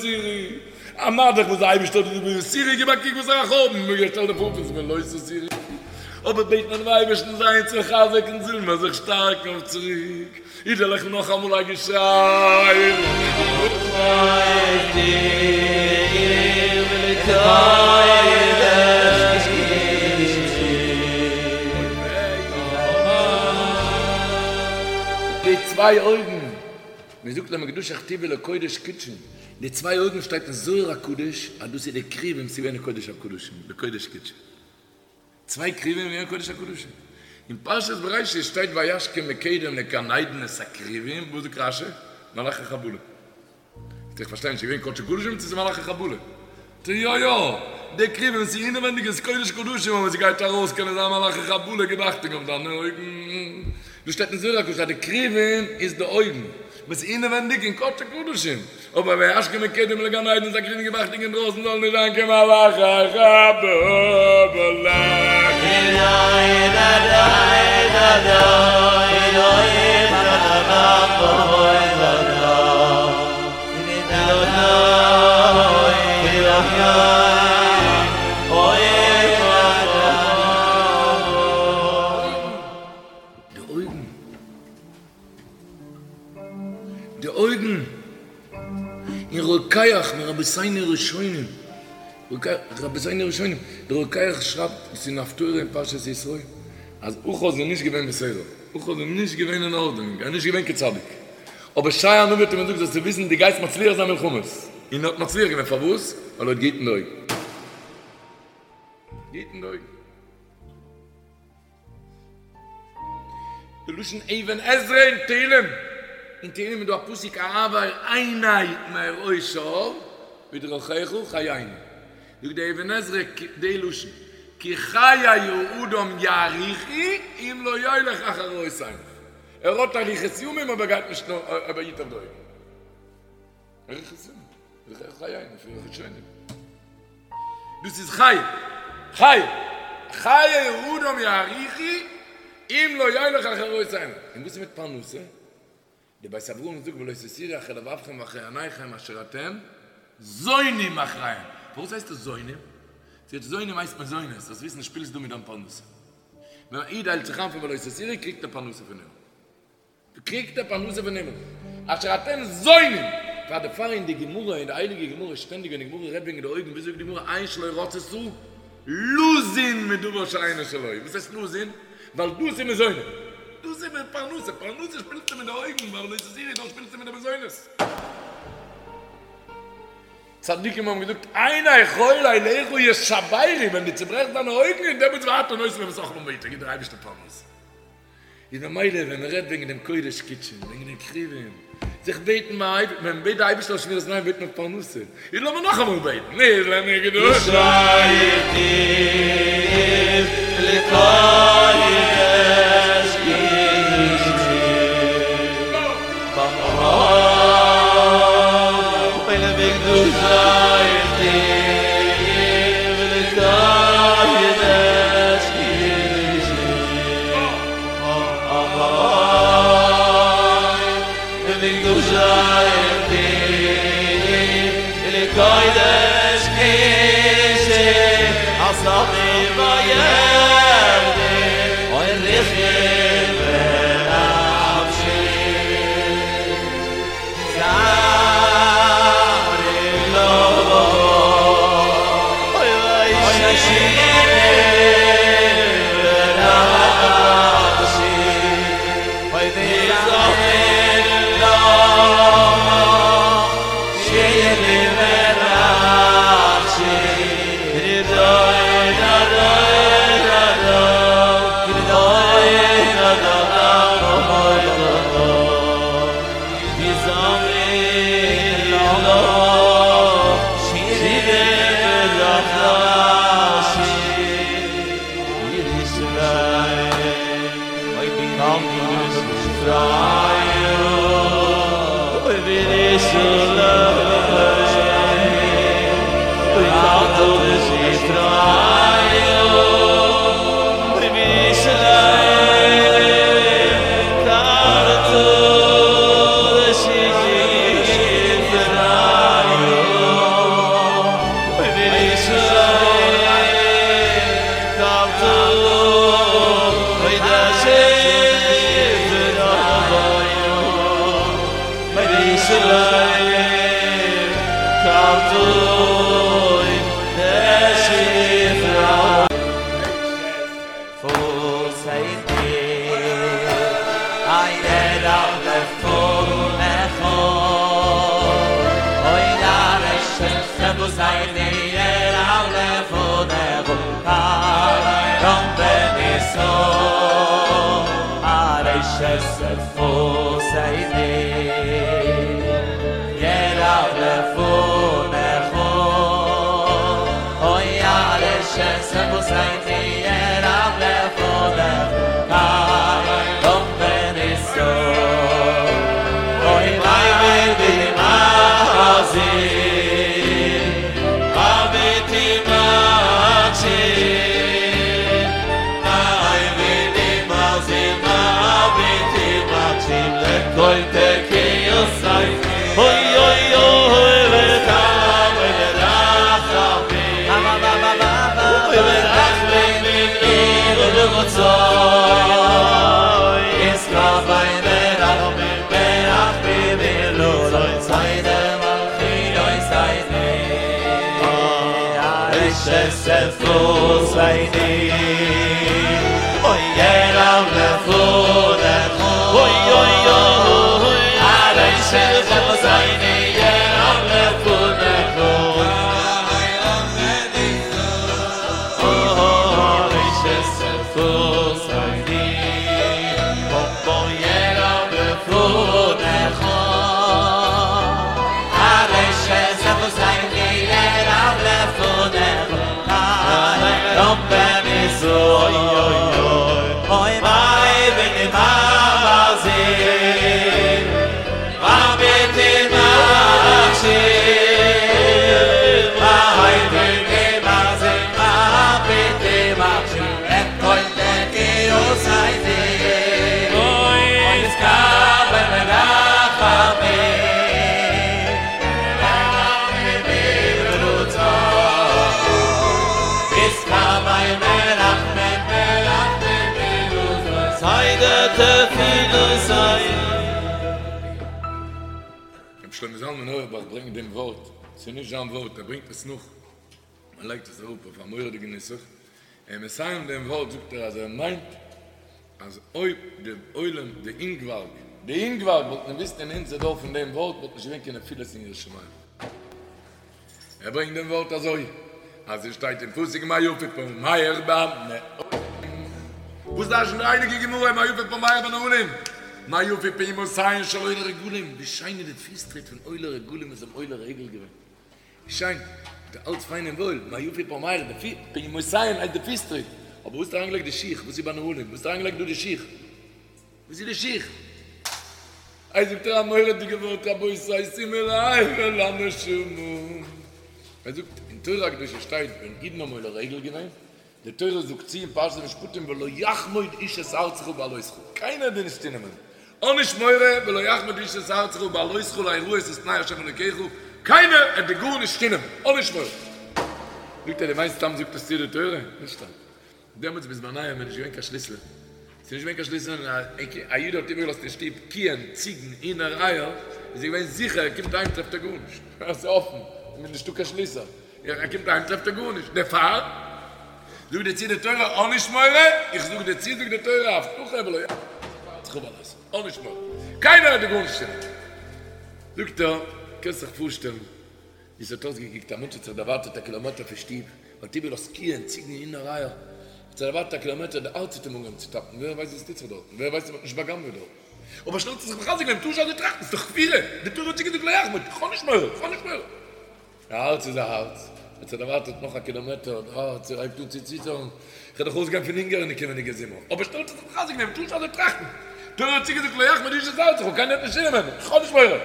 [SPEAKER 5] א מה דאך וואס די אייבערשטער האט געזאגט ויתורו גיב א קוק וואסערע חורבן שטעל דיר פאר פון ולא תתורו אבער בעט מען דעם אייבערשטן זיי אונז מחזק זאלן מיר זיך שטארקן אויף צוריק. אידעלעך נאכאמאל א געשריי. די צוויי אויגן, מען זאגט למקדשך תוב ולקודש קדשי, די צוויי אויגן שטייט אין זוהר הקדוש אז דאס איז די כרובים ס'איז געווען אין קודש הקדשים, לקודש קדשי. צוויי כרובים אין קודש הקדשים. אין פרשת בראשית שטייט וישכם מקדם לגן עדן את הכרובים, וואס זאגט רשי? מלאכי חבלה. איך פארשטיי נישט, ס'איז געווען קודש קדשים צו ס'איז מלאכי חבלה? טא יא יא, די כרובים ס'איז אינעווענדיג איז קודש קדשים אבער ס'גייט ארויס קענען זיין מלאכי חבלה גיב אכטונג אויף דיינע אויגן. דא שטייט אין זוהר הקדוש אז די כרובים איז די אויגן. וואס איז אינעווענדיג אין קודש הקדשים, אבער וישכם מקדם לגן עדן את הכרובים גיב אכטונג אינדרויסן זאל נישט זיין קיין מלאכי חבלה. די אויגן. די אויגן אין רוקח מרבותינו הראשונים, רבותינו הראשונים, דער רוקח שרייבט עס אין הפטורה אין פרשת יתרו, אז אחז איז נישט געווען בסדר, אחז איז נישט געווען אין ארדענונג, ער איז נישט געווען קיין צדיק, אבער ישעי' הנביא האט אים געזאגט זאלסטו וויסן דו גייסט מצליח זיין מלחמות, און ער האט מצליח געווען, פארוואס? ווייל ער האט געהיטן די אויגן. געהיטן די אויגן. די לשון אבן עזרא אין תהלים, אין תהלים איז דא א פסוק העבר עיני מראות שוא בדרכיך חייני, זאגט די אבן עזרא די לשון כי חיי האדם יאריכו אם לא ילך אחר ראות עיניו, ער האט אריכות ימים אבער גייט נישט נאך אבער היט אויף די אויגן. ערך סימן, איז דאך ערך היין לפי הראשונים. דאס איז חיי, חיי, חיי האדם יאריכו אם לא ילך אחר ראות עיניו. און וואס איז מיט פרנסה? די בית אברהם זאגט ולא תתורו אחרי לבבכם ואחרי עיניכם אשר אתם זונים אחריהם. פארוואס הייסט עס זונים? זי האט זונים הייסט מזונות, זאלסט וויסן שפילסט דא מיט דיין פרנסה. ווען א איד איילט זיך איין פון ולא תתורו קריגט ער פרנסה פון הימל. קריגט ער פרנסה פון הימל. אשר אתם זונים! פאר דערפאר אין די גמרא, אין די הייליגע גמרא שטענדיג ווען די גמרא רעדט וועגן די אויגן ווי זאגט די גמרא עין שלא רצתה לזון מדבר שאינו שלו. וואס הייסט לזון? ווייל דאס איז מזונות. דאס איז פרנסה. פרנסה שפילסטו מיט די אויגן, ווייל ולא תתורו דארט שפילסטו מיט די מזונות. צדיקים האבן געזאגט עיני כל אליך ישברו, ווען דו צוברעכסט דיינע אויגן און דעמאלטס ואתה נותן להם את אכלם בעתו, גיט דער אייבערשטער פרנסה. איז ממילא ווען מען רעדט וועגן דעם קודש קדשים, וועגן דעם כרובים, זיך בעטן ביים אייבערשטן, ווען מען בעט די אייבערשטער אויף שמירת עיניים בעט מען פרנסה, איז לאמיר נאכאמאל בעטן, נזלה
[SPEAKER 6] לקודש קדשים.
[SPEAKER 5] שלמה זלמן אויערבאך ברענגט דעם ווארט, ס'איז נישט זיין ווארט, ער ברענגט עס נאך, ער לייגט עס אראפ אויף א מורא'דיגע נוסח, און מסיים דעם ווארט זאגט ער אז ער מיינט אז אויב די עולם, די אינגווארג, די אינגווארג וואלטן געוואוסט אין אונזער דור פון דעם ווארט וואלט נישט געווען קיין נפילות אין יראת שמים. ער ברענגט דעם ווארט אזוי אז עס שטייט אין פסוק מה יפו פעמיך בנעלים, וואס דרש'נט די הייליגע גמרא מה יפו פעמיך בנעלים, מה יפו פעמותיהן של עולי רגלים, ווי שיין איז די פיס טריט פון עולי רגלים וואס האבן עולה רגל געווען, ווי שיין, איז אלץ פיין און וואויל, מה יפו פעמיך, די פיס, פעמותיהן הייסט די פיס טריט, אבער וואס האסטו אריינגעלייגט די שיך, וואס איז בנעלים, וואס האסטו אריינגעלייגט דא די שיך? וואס איז די שיך? איי זאגט ער א מורא'דיגע ווארט רבותי שימו לב אל הנשמה. ער זאגט אין תורה הקדושה שטייט ווען אידן האבן עולה רגל געווען, די תורה זאגט צו אין פרשת משפטים ולא יחמוד איש את ארצך בעלותך, קיינער וועט דיר נישט צונעמען, האב נישט מורא ולא יחמוד איש את ארצך בעלותך לראות את פני ה' אלוקיך, קיינער וועט דיר גארנישט צונעמען, האב נישט מורא. זאגט ער דו מיינסט סתם זאגט עס צו די תורה? נישט סתם. דעמאלטס בזמניהם איז נישט געווען קיין שליסלען, ס'איז נישט געווען קיין שליסלען, און א איד האט איבערגעלאזט אין שטוב קיען, ציגן, הינער, אייער, איז ער געווען זיכער ער קומט אהיים טרעפט ער גארנישט, עס איז אפן, ס'איז נישטא קיין שליסעל, ער קומט אהיים טרעפט ער גארנישט, דערפאר זאגט דיר צו די תורה האב נישט מורא, איך זאג דיר צו זאגט די תורה א הבטחה ולא האב נישט מורא, קיינער וועט דיר גארנישט טון, זאגט ער, קענסט זיך פארשטעלן ווי ס'האט אויסגעקוקט, א מענטש האט זיך דערווארטעט א קילאמעטער פון שטוב, האט איבערגעלאזט קיען, ציגן, הינער, אייער, האט זיך דערווארטעט א קילאמעטער, די הארץ האט אים אנגעהויבן צו טאפן, ווער ווייסט וואס טוט זיך דארטן, ווער ווייסט אויב מ'האט נישט בא'גנב'עט דארט. אבער שנעל האט ער זיך מחזק געווען, מ'טאר נישט אזוי טראכטן, ס'איז דאך כפירה, די תורה האט צוגעזאגט לא יחמוד, איך האב נישט מורא, איך האב נישט מורא. א הארץ איז א הארץ, האט זיך דערווארטעט נאך א קילאמעטער, די הארץ הייבט אן צו ציטערן, איך וועל דאך אויסגיין פון הונגער אין די קומענדיגע זומער, אבער שנעל האט ער זיך מחזק געווען, מ'טאר נישט אזוי טראכטן, תורה האט צוגעזאגט לא יחמוד איש את ארצך, קיינער וועט נישט צונעמען, איך האב נישט מורא.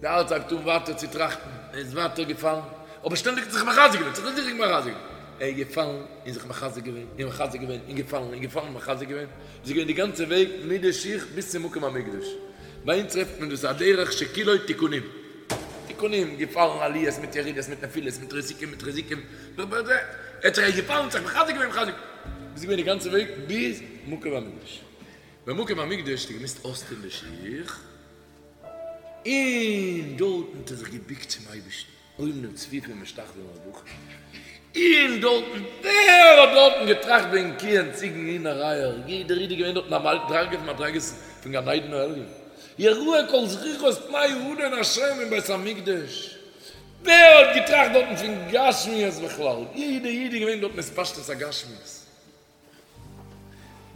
[SPEAKER 5] די הארץ הייבט אן ווייטער צו טראכטן, ער איז ווייטער געפאלן, אבער שטענדיג האט זיך מחזק געווען, זיך זיך מחזק געווען, ער איז געפאלן און זיך מחזק געווען, און מחזק געווען, און געפאלן, און געפאלן און מחזק געווען, איז געווען די גאנצע וועג מיט די שיך ביז צום מקום המקדש. ביי אונז טרעפט מען דאס א דרך שכולו תיקונים, תיקונים, געפאלן עליות מיט ירידות מיט נפילות מיט רסיקים מיט חיזוקים, ער האט זיך געפאלן, זיך מחזק געווען, מחזק, איז געווען די גאנצע וועג ביז מקום המקדש. במקום המקדש האט ער געמוזט אויסטון די שיך, און דארטן האט ער זיך געבוקט צום אייבערשטן, עומדים צפופים ומשתחווים ארבעה, און דארטן, ווער האט דארטן געטראכט וועגן קיען, ציגן, הינער, אייער, יעדער איד איז געווען דארטן א מדרגה פון מדרגות פון גן עדן העליון, יראה כל זכורך את פני האדון השם אין בית המקדש, ווער האט געטראכט דארטן פון גשמיות בכלל, יעדער איד איז געווען דארטן התפשטות הגשמיות.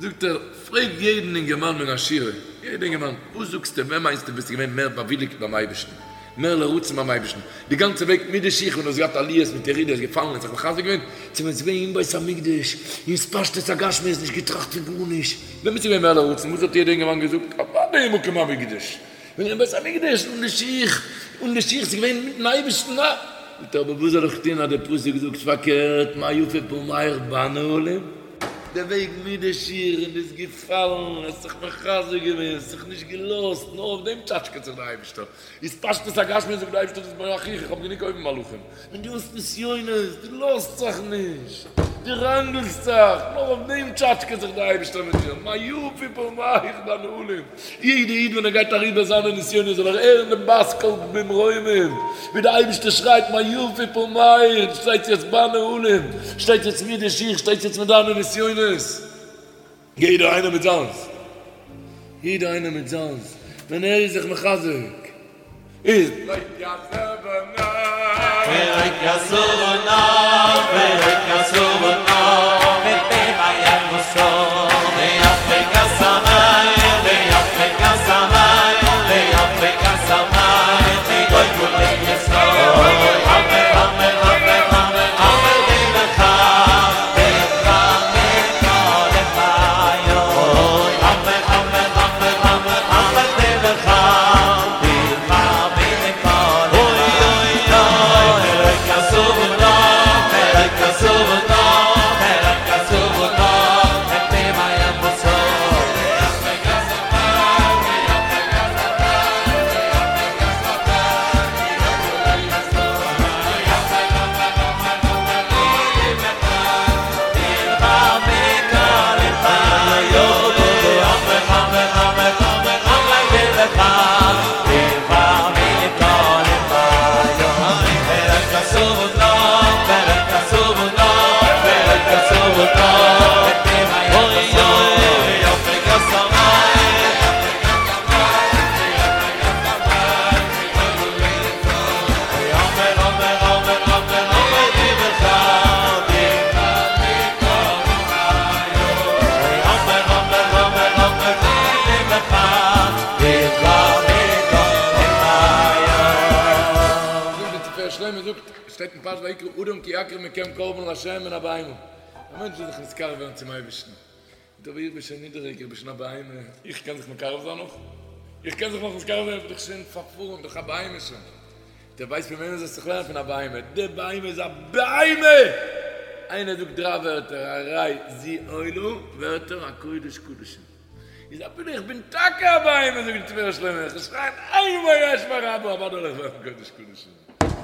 [SPEAKER 5] זאגט ער, פרעג יעדן אינגערמאן מן השורה, יעדע אינגערמאן, וואס זאגסטו, ווען מיינסטו ביסטו געווען מער באוויליגט ביים אייבערשטן, מער לרצון ביים אייבערשטן, די גאנצע וועג מיט די שיך ווען דו האסט געהאט עליות מיט ירידות, געפאלן און זיך מחזק געווען, צו ווען ס'איז געווען אין בית המקדש, אין התפשטות הגשמיות, נישט געטראכט פון גארנישט, ווען ביסטו געווען מער לרצון, וואס האט יעדע אינגערמאן געזאגט, אוודאי אין מקום המקדש, ווען אין בית המקדש, אן די שיך, אן די שיך, ס'איז געווען מיטן אייבערשטן, אה! זאגט ער, אבער וואס זאל איך טון אז דער פסוק זאגט פארקערט, מה יפו פעמיך בנעלים, דער וועג מיט די שיך און ביסט געפאלן, האסט זיך מחזק געווען, האסט זיך נישט געלאזט, נאר אויף דעם טשאטשקעט זיך דער אייבערשטער, התפשטות הגשמיות זאגט דער אייבערשטער דאס איז ביי אחיך, איך האב גענוג אויבן מלאכים, ווען דו האסט נסיונות, דו לאזט זיך נישט, דו ראנגלסט זיך, נאר אויף דעם טשאטשקעט זיך דער אייבערשטער מיט דיר, מה יפו פעמיך בנעלים, יעדע איד ווען ער גייט אריבער זיינע נסיונות זאל ער הערן דעם בת קול במרומים, ווי דער אייבערשטער שרייט מה יפו פעמיך, שטייט יעצט בנעלים, שטייט יעצט מיט די שיך, שטייט יעצט מיט דיינע נסיונות. יעדער איינער מיט זיינס, יעדער איינער מיט זיינס, ווען ער איז זיך מחזק איז. זאגט די תפארת שלמה זאגט, שטייט אין פרשת ויקרא אדם כי יקריב מכם קרבן לה' מן הבהמה, א מענטש וויל זיך נתקרב ווערן צום אייבערשטן, זאגט אבער איך בין שוין נידעריג, איך בין שוין א בהמה, איך קען זיך מקרב זיין נאך? איך קען זיך נאך נתקרב זיין? איך בין דאך שוין פארפארן, דאך א בהמה שוין. דו ווייסט פון וועמען זאלסט זיך לערנען? פון א בהמה, די בהמה איז א בהמה! איינער זאגט דריי ווערטער, הרי זו עולה, ווערט ער א קודש קדשים. איז אפילו איך בין טאקע א בהמה, זאגט די תפארת שלמה, איך וועל שרייען איינמאל יהא שמיה רבא, אוודאי וועל איך ווערן קודש קדשים.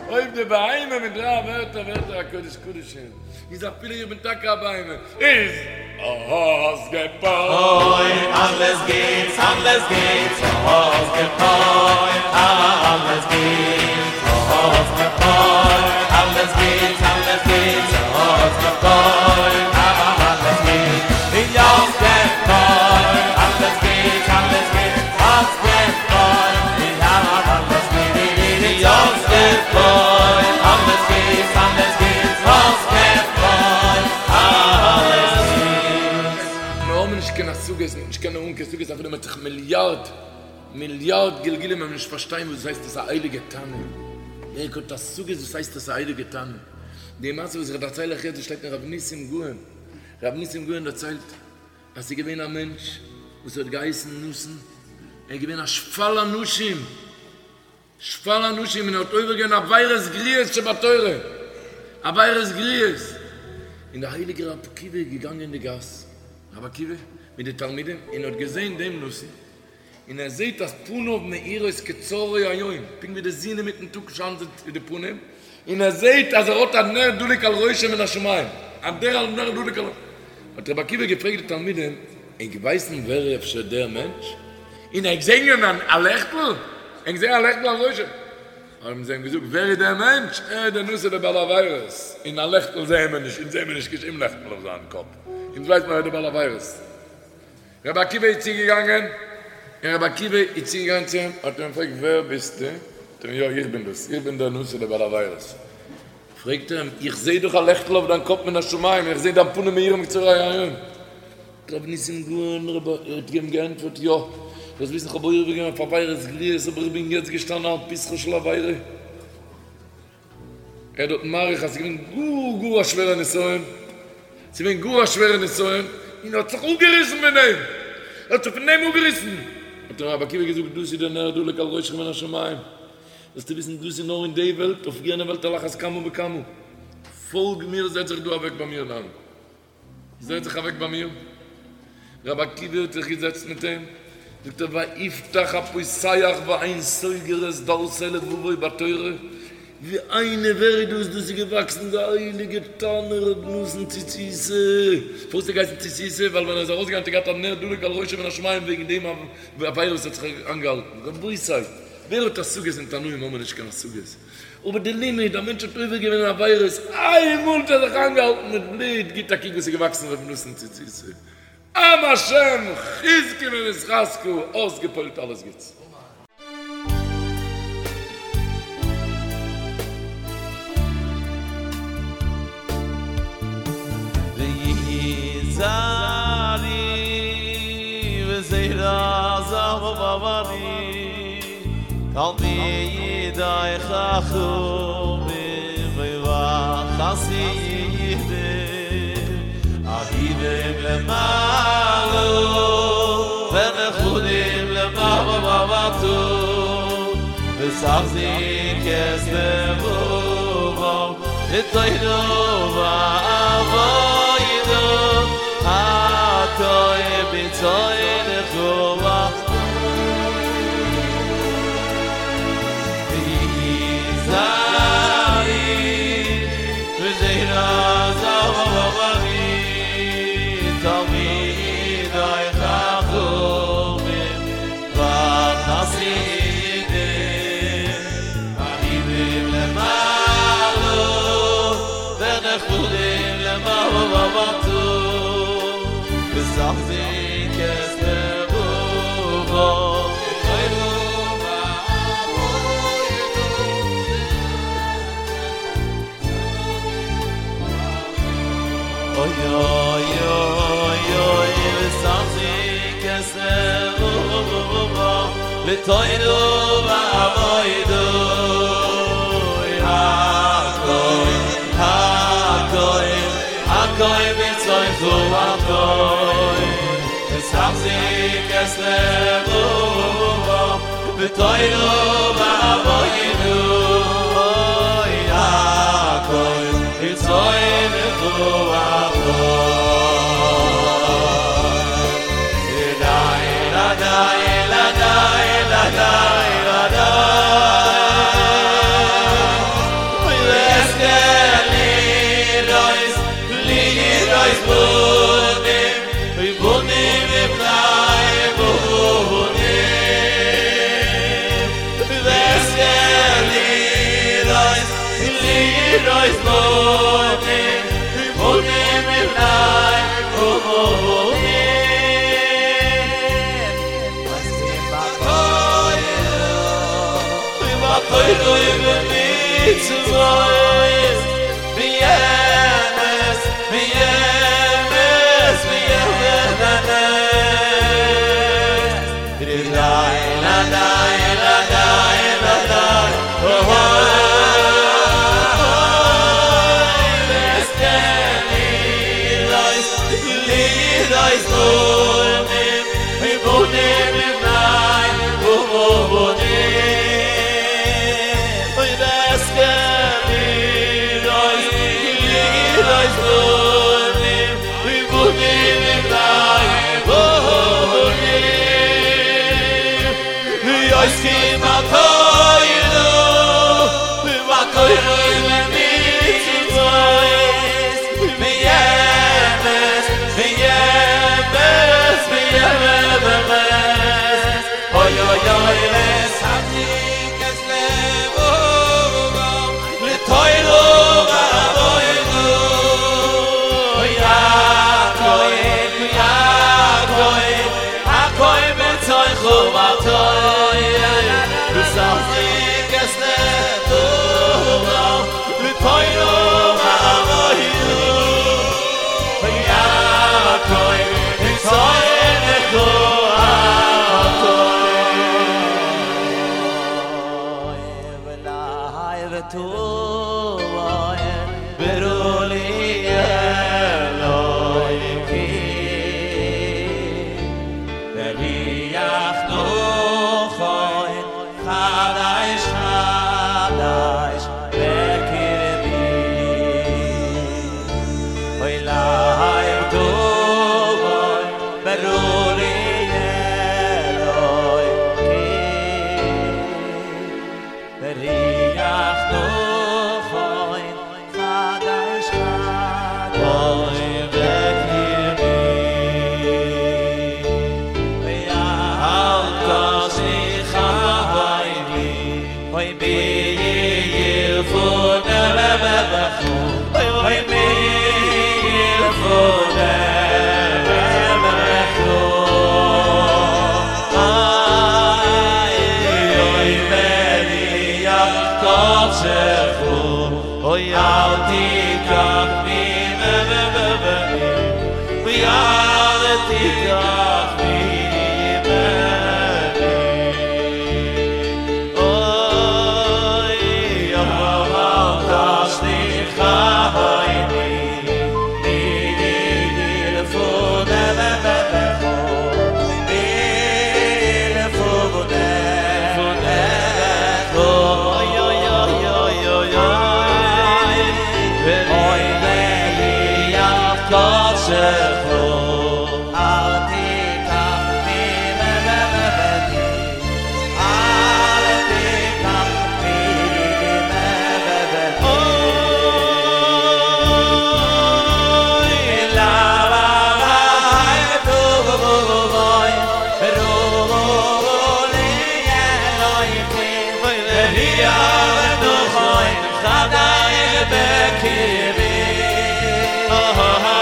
[SPEAKER 5] אויב די בהמה מיט דריי ווערטער ווערט ער א קודש קדשים, איז אפילו איך בין טאקע א בהמה, איז אויסגעפועלט.
[SPEAKER 6] אלעס גוטס, אלעס גוטס, אויסגעפועלט, אלעס גוטס, אויסגעפועלט, אלעס גוטס, אלעס גוטס, אויסגעפועלט, אלעס גוטס, אויסגעפועלט, אלעס גוטס, אלעס גוטס, אויסגעפועלט, אלעס גוטס, אויסגעפועלט, אלעס גוטס, אלעס גוטס, אויסגעפועלט, אלעס גוטס.
[SPEAKER 5] מיר האבן נישט קיין השגות, מ'וועט נישט קענען האבן קיין השגות אפילו מ'האט זיך מיליארד מיליארד גלגולים וועלן מיר נישט פארשטיין וואס הייסט עס א הייליגע תנא, ווער האט השגות וואס הייסט עס א הייליגע תנא? די מעשה וואס איך דערצייל אייך יעצט דאס שטייט אין רב ניסים גאון, רב ניסים גאון דערציילט אז ס'איז געווען א מענטש וואס האט געהייסן נתן, ער איז געווען א שפל אנשים, שפל אנשים און ער האט עובר געווען עבירות גרועות שבתורה, עבירות גרועות, און דער הייליגער רבי עקיבא איז געגאנגען אין די גאס, רבי עקיבא מיט די תלמידים, און האט געזען דעם נתן, און ער זעט אז פניו מאירות כצהרי היום, פונקט ווי די זון אינמיטן טאג שיינט די פנים, און ער זעט אז ער האט א נר דלוק על ראשו מן השמים, א נר דלוק על ראשו, האט רבי עקיבא געפרעגט די תלמידים, ענק ווייסן ווער איז אפשר דער מענטש? און ענק זעען א לעכטל? ענק זעען א לעכטל על ראשו? האבן זיי אים געזאגט, ווער איז דער מענטש? ער איז דער נתן דער בעל עבירות, און א לעכטל זעען מיר נישט, אונז זעען מיר נישט קיין שום לעכטל אויף זיין קאפ, אונז ווייסן מיר ער איז דער בעל עבירות. רבי עקיבא איז צוגעגאנגען, און רבי עקיבא איז צוגעגאנגען צו אים, האט ער אים געפרעגט, ווער ביסטו? זאגט ער אים, יא, איך בין דאס, איך בין דער נתן דער בעל עבירות. פרעגט ער אים, איך זע דאך א לעכטל אויף דיין קאפ מן השמים, איך זע דיין פנים מאירים כצהרי היום. רבי ניסים גאון רבי האט אים געענטפערט, יא, זאלסט וויסן איך האב עובר געווען אויף עבירות גרועות, אבער איך בין יעצט געשטאנען על פתחו של עבירה. ער האט דארט מאריך אז ס'איז געווען גאר גאר א שווערע נסיון, ס'איז געווען גאר א שווערע נסיון, און ער האט זיך אפגעריסן פון דעם, ער האט זיך פון דעם אפגעריסן, האט אים רבי עקיבא געזאגט, דאס איז דער נר דלוק על ראשך מן השמים, זאלסטו וויסן דאס איז נאר אין די וועלט, אויף יענע וועלט על אחת כמה וכמה, פאלג מיר, זעץ זיך דא אוועק ביי מיר נאר. זעץ זיך אוועק ביי מיר. רבי עקיבא האט זיך געזעצט מיט אים, זאגט ער, ויפתח הפותח ואין סוגר את דלתי לבבו בתורה, ווי איינער ווער איז דאס, דאס איז געוואקסן די הייליגע תנא רבי נתן צוציתא, פארוואס האט ער געהייסן צוציתא, ווייל ווען ער איז ארויסגעגאנגען האט ער געהאט א נר דלוק על ראשו מן השמים וועגן דעם עבירה וואס האט זיך איינגעהאלטן, רבותי, ווער האט השגות אין תנאים האבן מיר נישט קיין השגות. אבער די לימוד, א מענטש האט עובר געווען אין עבירות, איינמאל האט ער זיך איינגעהאלטן מיט בלוט, גיט א קוק וואס איז געוואקסן ר' נתן צוציתא, עם השם חזקו ונתחזקה, אויסגעפועלט אלעס גוטס.
[SPEAKER 6] תלמידי חכמים וחסידים אהובים למעלה ונחמדים למטה ותחזיק את לבבם בתורה ועבודה הכל ברצונך וסחזיק את לבובו לתוירו ועבוידו אוי אוי אוי אוי וסחזיק את לבובו לתוירו ועבוידו הכוי הכוי הכוי בצויכו הכוי וסחזיק את לבובו לתוירו ועבוידו אוי הכוי בצויכו הכוי די די די די די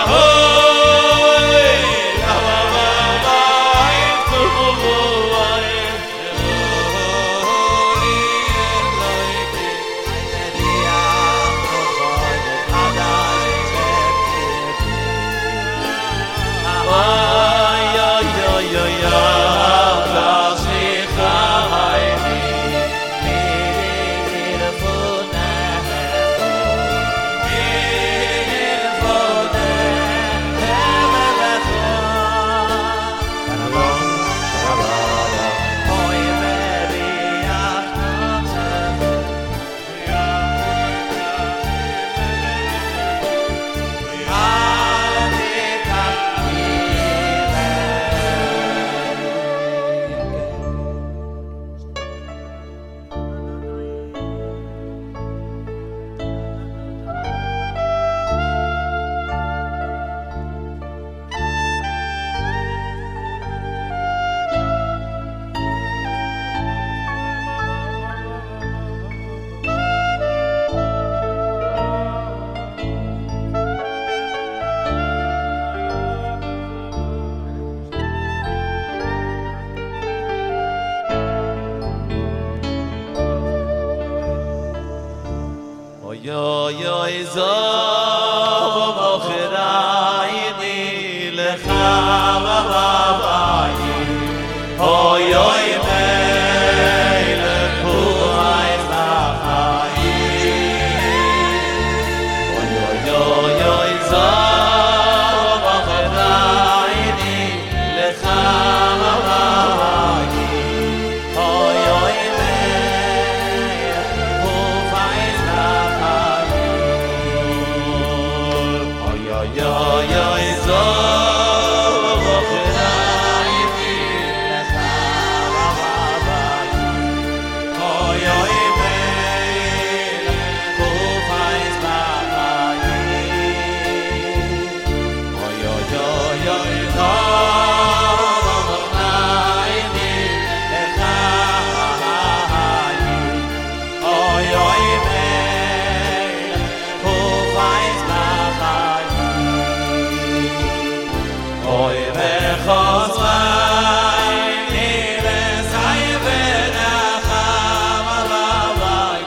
[SPEAKER 7] Oh.
[SPEAKER 6] זא ומוכרייני לך אוי אוי מלך הוא אוי אוי אוי זא ומוכרייני לך אוי אוי מלך הוא אוי אוי אוי אוי זא ומוכרייני לך אוי אוי מלך הוא אוי אוי אוי אוי זא ומוכרייני לך אוי אוי מלך הוא אוי וחוזרייני וסי ונחם עליי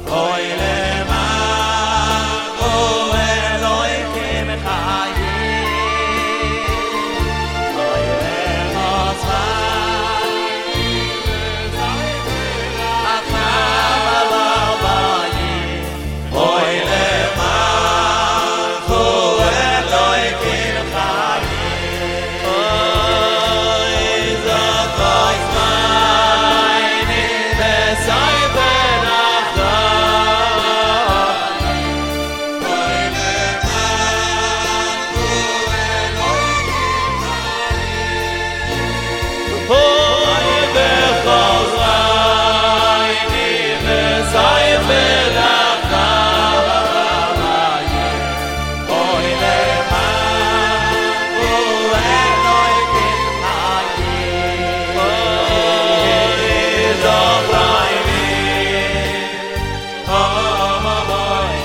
[SPEAKER 6] אוי למען אלוהיכם חיים אוי וחוזרייני ונחם עליי אוי למען אלוהיכם חיים אוי זכוי זמייני וסי ונחם אוי למען אוי וחוזרייני וסי ונחם אוי למען אלוהיכם חיים אוי זכרייני אוי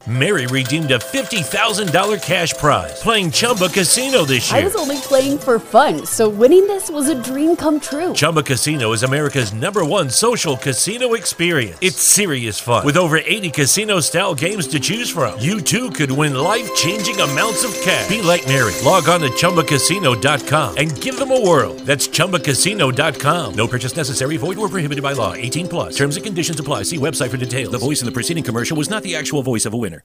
[SPEAKER 7] Mary redeemed a $50,000 cash prize playing Chumba Casino this
[SPEAKER 2] I
[SPEAKER 7] year.
[SPEAKER 2] was only playing for fun, so winning this was a dream come true.
[SPEAKER 7] Chumba Casino is America's number one social casino experience. It's serious fun. With over 80 casino style games to choose from, you too could win life changing amounts of cash. Be like Mary. Log on to chumbacasino.com and give them a whirl. That's chumbacasino.com. No purchase necessary, void or prohibited by law. 18 plus. Terms and conditions apply. See website for details. The voice in the preceding commercial was not the actual voice of a winner.